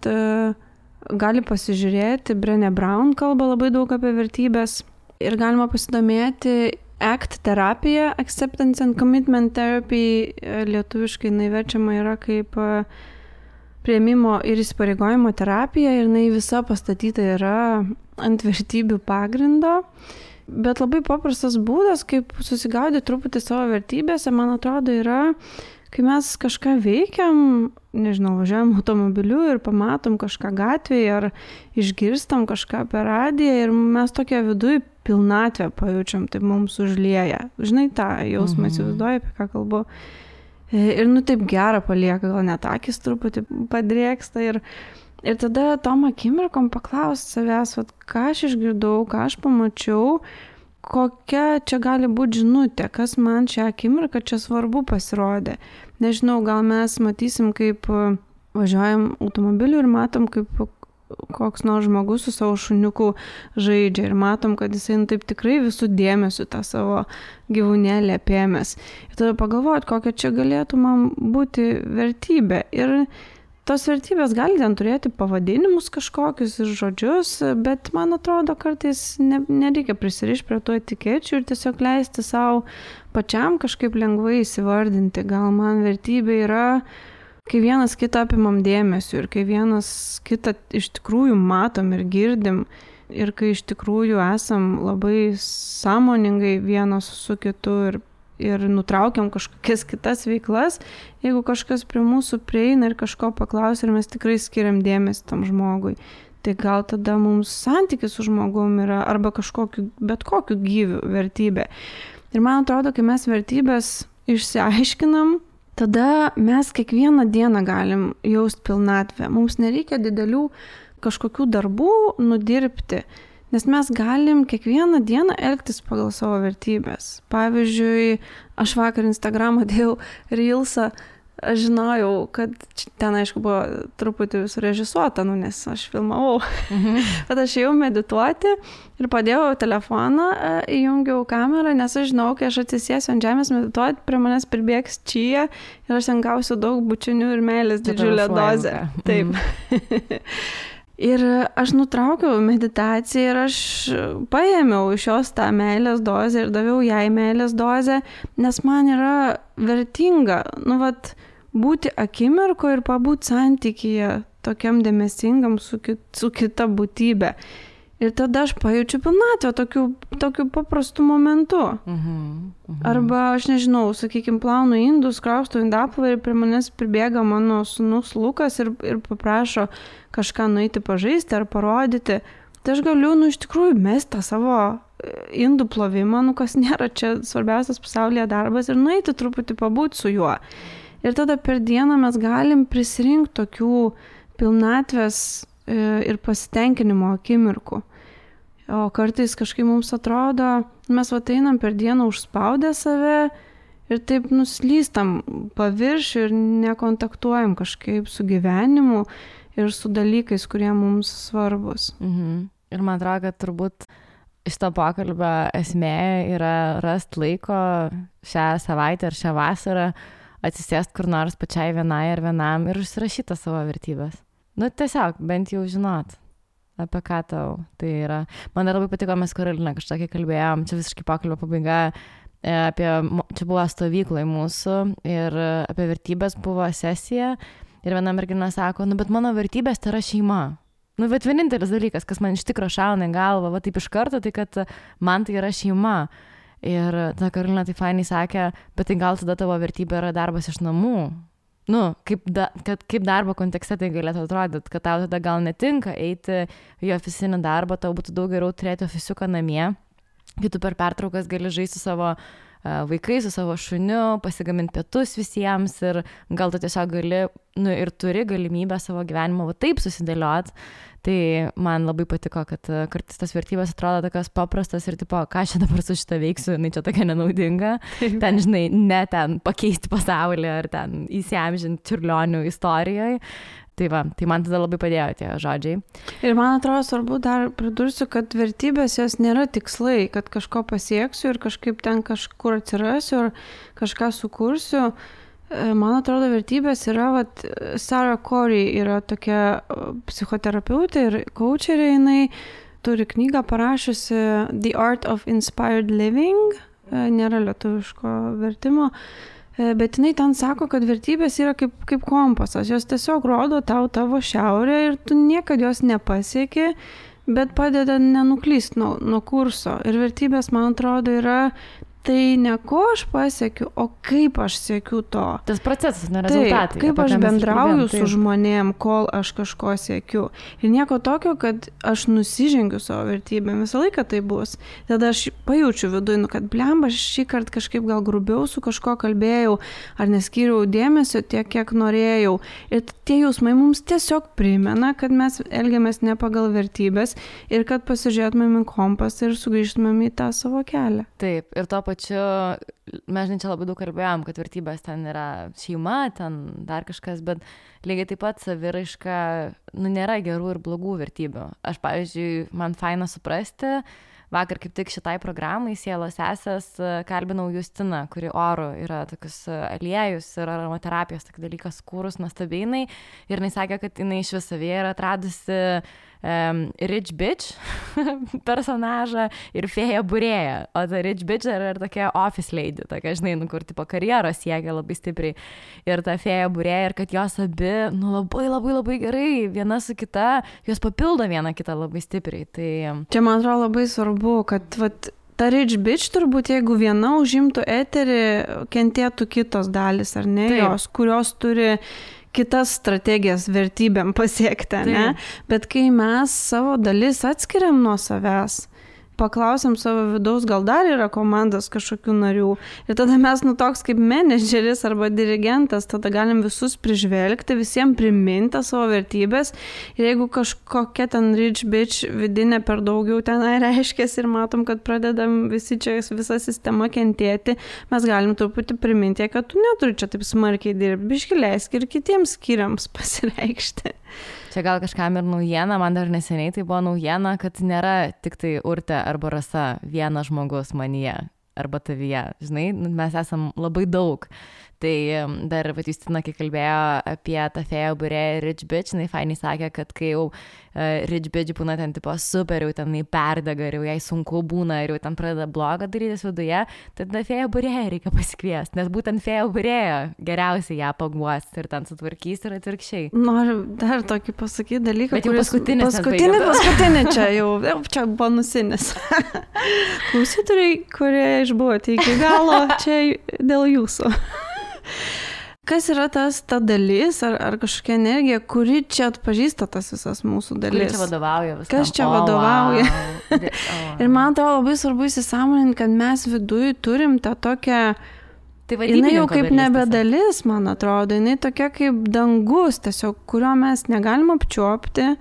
gali pasižiūrėti, Brené Brown kalba labai daug apie vertybės ir galima pasidomėti ACT terapija, Acceptance and Commitment Therapy, lietuviškai jinai verčiama yra kaip priėmimo ir įsipareigojimo terapija ir jinai visa pastatyta yra ant vertybių pagrindo. Bet labai paprastas būdas, kaip susigaudyti truputį savo vertybėse, man atrodo, yra, kai mes kažką veikiam, važiuojam automobiliu ir pamatom kažką gatvėje ar išgirstam kažką per radiją ir mes tokia viduj pilnatvę pajaučiam, tai mums užlieja. Žinai, tą jausmą įsivaizduoju, apie ką kalbu. Ir taip gerą palieka, gal net akis truputį padrėksta ir tada tom akimirkom paklausti savęs, ką aš išgirdau, ką aš pamačiau, kokia čia gali būti žinutė, kas man šią akimirką čia svarbu pasirodė. Nežinau, gal mes matysim, kaip važiuojam automobiliu ir matom, kaip koks nors žmogus su savo šuniuku žaidžia ir matom, kad jisai taip tikrai visų dėmesių tą savo gyvūnėlį apėmęs. Ir tada pagalvoti, kokia čia galėtų man būti vertybė. Ir tos vertybės gali ten turėti pavadinimus kažkokius ir žodžius, bet man atrodo, kartais nereikia prisirišti prie tų etikečių ir tiesiog leisti savo pačiam kažkaip lengvai įsivardinti. Gal man vertybė yra kai vienas kitą apimam dėmesiu ir kai vienas kitą iš tikrųjų matom ir girdim ir kai iš tikrųjų esam labai sąmoningai vienas su kitu ir nutraukiam kažkokias kitas veiklas, jeigu kažkas prie mūsų prieina ir kažko paklausia ir mes tikrai skiriam dėmesį tam žmogui, tai gal tada mums santykis su žmogum yra arba bet kokiu gyviu vertybė. Ir man atrodo, kai mes vertybės išsiaiškinam, tada mes kiekvieną dieną galim jaust pilnatvę. Mums nereikia didelių kažkokių darbų nudirbti, nes mes galim kiekvieną dieną elgtis pagal savo vertybės. Pavyzdžiui, aš vakar Instagramą dėjau Reelsą, aš žinojau, kad ten, aišku, buvo truputį surežisuota, nes aš filmavau. Bet aš ėjau medituoti ir padėjau telefoną, įjungiau kamerą, nes aš žinau, kai aš atsisėsiu ant žemės medituoti, prie manęs pribėgs čia ir aš ten gausiu daug bučinių ir meilės didžiulę dozę. Taip. Ir aš nutraukiau meditaciją ir aš paėmiau iš jos tą meilės dozę ir daviau jai meilės dozę, nes man yra vertinga, būti akimirko ir pabūt santykyje tokiam dėmesingam su kita būtybė. Ir tada aš pajaučiu pilnatvę tokiu paprastu momentu. Arba, aš nežinau, sakykime, plaunu indus, kraustau indaplovę ir prie manęs pribėga mano sūnus Lukas ir paprašo kažką nueiti pažaisti ar parodyti. Tai aš galiu, iš tikrųjų, mesti tą savo indų plovimą, kas nėra čia svarbiausias pasaulyje darbas ir nueiti truputį pabūti su juo. Ir tada per dieną mes galim prisirinkti tokių pilnatvės ir pasitenkinimo akimirkų. O kartais kažkaip mums atrodo, mes einam per dieną užspaudę save ir taip nuslystam paviršių ir nekontaktuojam kažkaip su gyvenimu ir su dalykais, kurie mums svarbus. Ir man atrodo, kad turbūt šito pokalbio esmė yra rasti laiko šią savaitę ar šią vasarą atsisėsti kur nors pačiai vienai ar vienam ir užsirašyti savo vertybės. Tiesiog, bent jau žinot, apie ką tau tai yra. Man labai patiko, mes Karolina kažkokį kalbėjom, čia visiškai pokalbio pabaiga, čia buvo stovyklai mūsų ir apie vertybės buvo sesija ir viena mergina sako, bet mano vertybės tai yra šeima. Bet vienintelis dalykas, kas man iš tikro šauna į galvą, taip iš karto, tai kad man tai yra šeima. Ir ta Karolina tai fainai sakė, bet tai gal tada tavo vertybė yra darbas iš namų. Kaip darbo kontekste tai galėtų atrodyti, kad tau tada gal netinka eiti į ofisinį darbą, tau būtų daug geriau turėti ofisiuką namie, kai tu per pertraukas gali žaisti su savo vaikais, su savo šuniu, pasigaminti pietus visiems ir gal tu tiesiog gali ir turi galimybę savo gyvenimą taip susidėliot. Tai man labai patiko, kad kartais tas vertybės atrodo tokios paprastas ir tipo, ką aš dabar su šitą veiksiu, čia tokia nenaudinga. Ten, žinai, ne ten pakeisti pasaulį ar ten įsiamžinti Čiurlionių istorijoje. Tai man tada labai padėjo tie žodžiai. Ir man atrodo svarbu dar pridursiu, kad vertybės jos nėra tikslai, kad kažko pasieksiu ir kažkaip ten kažkur atsirasiu ar kažką sukursiu. Man atrodo, vertybės yra, Sarah Corey yra tokia psichoterapeutė ir coacherė, jinai turi knygą parašiusi The Art of Inspired Living, nėra lietuviško vertimo, bet jinai ten sako, kad vertybės yra kaip kompasas, jos tiesiog rodo tau tavo šiaurę ir tu niekada jos nepasieki, bet padeda nenuklysti nuo kurso. Ir vertybės, man atrodo, yra tai ne ko aš pasiekiu, o kaip aš siekiu to. Tas procesas, ne rezultatai. Taip, kaip aš bendrauju su žmonėm, kol aš kažko siekiu. Ir nieko tokio, kad aš nusižengiu savo vertybėm. Visą laiką tai bus. Tada aš pajaučiu viduje, kad blemba, šį kartą kažkaip gal grubiau su kažko kalbėjau, ar neskyriau dėmesio tiek, kiek norėjau. Ir tie jausmai mums tiesiog primena, kad mes elgiamės ne pagal vertybės ir kad pasižiūrėtumėm į kompasą ir sugrįžtumėm į tą savo kelią. Taip, ir to pačiu, mes čia labai daug kalbėjom, kad vertybės ten yra šeima, ten dar kažkas, bet lygiai taip pat saviraiška, nėra gerų ir blogų vertybių. Aš, pavyzdžiui, man faina suprasti, vakar kaip tik šitai programai Sielos sesės kalbinau Justiną, kuri Oru yra tokius aliejus ir aromaterapijos dalykas kūrus nuostabiai, ir jinai sakė, kad jinai iš vis savyje yra atradusi Rich Bitch personažą ir fėja būrėja. O ta Rich Bitch yra tokia office lady, tokia, žinai, kur tipo karjeros siekia labai stipriai. Ir ta fėja būrėja, ir kad jos abi, labai gerai, viena su kita, jos papildo vieną kitą labai stipriai. Tai... Čia, man atrodo, labai svarbu, kad ta Rich Bitch turbūt, jeigu viena užimtų eterį, kentėtų kitos dalis, ar ne, jos, kurios turi kitas strategijas vertybėm pasiekti, ne? Bet kai mes savo dalis atskiriam nuo savęs, paklausiam savo vidaus, gal dar yra komandos kažkokių narių. Ir tada mes, toks kaip menedžeris arba dirigentas, tada galim visus prižvelgti, visiems priminti savo vertybės. Ir jeigu kažkokia ten Rich Bitch vidinė per daugiau tenai reiškės ir matom, kad pradedam visi čia, visa sistema kentėti, mes galim truputį priminti, kad tu neturi čia taip smarkiai dirbti, biški leisk ir kitiems skyriams pasireikšti. Čia gal kažkam ir naujiena, man dar neseniai tai buvo naujiena, kad nėra tik tai Urtė arba Rasa vienas žmogus manyje arba tavyje, žinai, mes esam labai daug. Tai dar Justina, kai kalbėjo apie tą fėją būrėją Rich Bitch, jinai fainiai sakė, kad kai jau Rich Bitch būna ten tipo super, jau ten perdega ir jau jai sunku būna ir jau ten pradeda blogą darytis viduje, tada fėją būrėją reikia pasikviesti, nes būtent fėją būrėją geriausiai ją paguos ir ten sutvarkys ir atvirkščiai. Noriu dar tokį pasakyti dalyką, bet jau paskutinį čia jau čia bonusinis. Klausytojai, kurie išbuvote iki galo, čia dėl jūsų. Kas yra ta dalis ar kažkokia energija, kuri čia atpažįsta tas visas mūsų dalis? Kuri čia vadovauja visam? Kas čia vadovauja? Wow. Ir man atrodo labai svarbu įsisąmoninti, kad mes viduj turim tą tokią... Tai jinai jau kaip nebe dalis, man atrodo, jinai tokia kaip dangus, tiesiog, kurio mes negalim apčiuopti,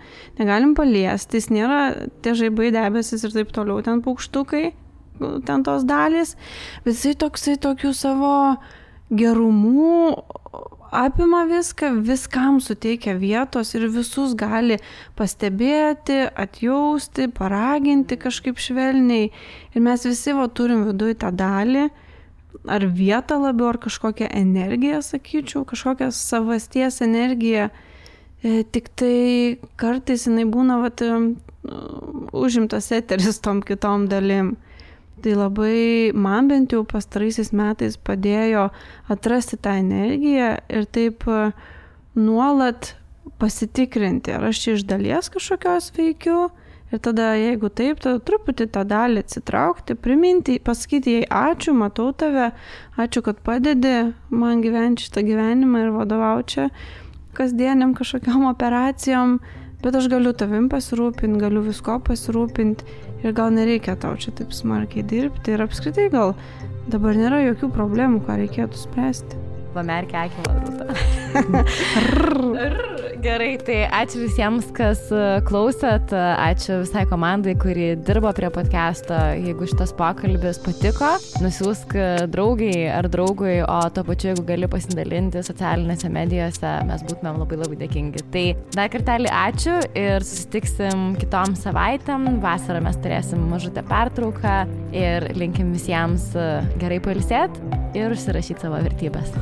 negalim paliesti, jis nėra tie žaibai, debesis ir taip toliau, ten paukštukai, ten tos dalys, bet jisai toksai tokių savo... gerumų apima viską, viskam suteikia vietos ir visus gali pastebėti, atjausti, paraginti kažkaip švelniai. Ir mes visi turim viduj tą dalį, ar vietą labiau, ar kažkokią energiją, sakyčiau, kažkokią savasties energiją. Tik tai kartais jinai būna užimtas eteris tom kitom dalim. Tai labai man bent jau pastaraisiais metais padėjo atrasti tą energiją ir taip nuolat pasitikrinti, ar aš čia iš dalies kažkokios veikiu ir tada, jeigu taip, tada truputį tą dalį atsitraukti, priminti, pasakyti jai ačiū, matau tave, ačiū, kad padedi man gyventi šitą gyvenimą ir vadovauti čia kasdieniam kažkokiam operacijom, bet aš galiu tavim pasirūpinti, galiu visko pasirūpinti ir gal nereikia tau čia taip smarkiai dirbti ir apskritai gal dabar nėra jokių problemų, ką reikėtų spręsti. Pamerkia akį, Rūta. Gerai, tai ačiū visiems, kas klausėt, ačiū visai komandai, kuri dirbo prie podcast'o. Jeigu šitas pokalbis patiko, nusiųsk draugai ar draugui, o to pačiu, jeigu gali pasidalinti socialinėse medijose, mes būtumėm labai dėkingi. Tai dar kartelį ačiū ir susitiksim kitom savaitėm. Vasarą mes turėsim mažutę pertrauką ir linkim visiems gerai pailsėt ir užsirašyti savo vertybės.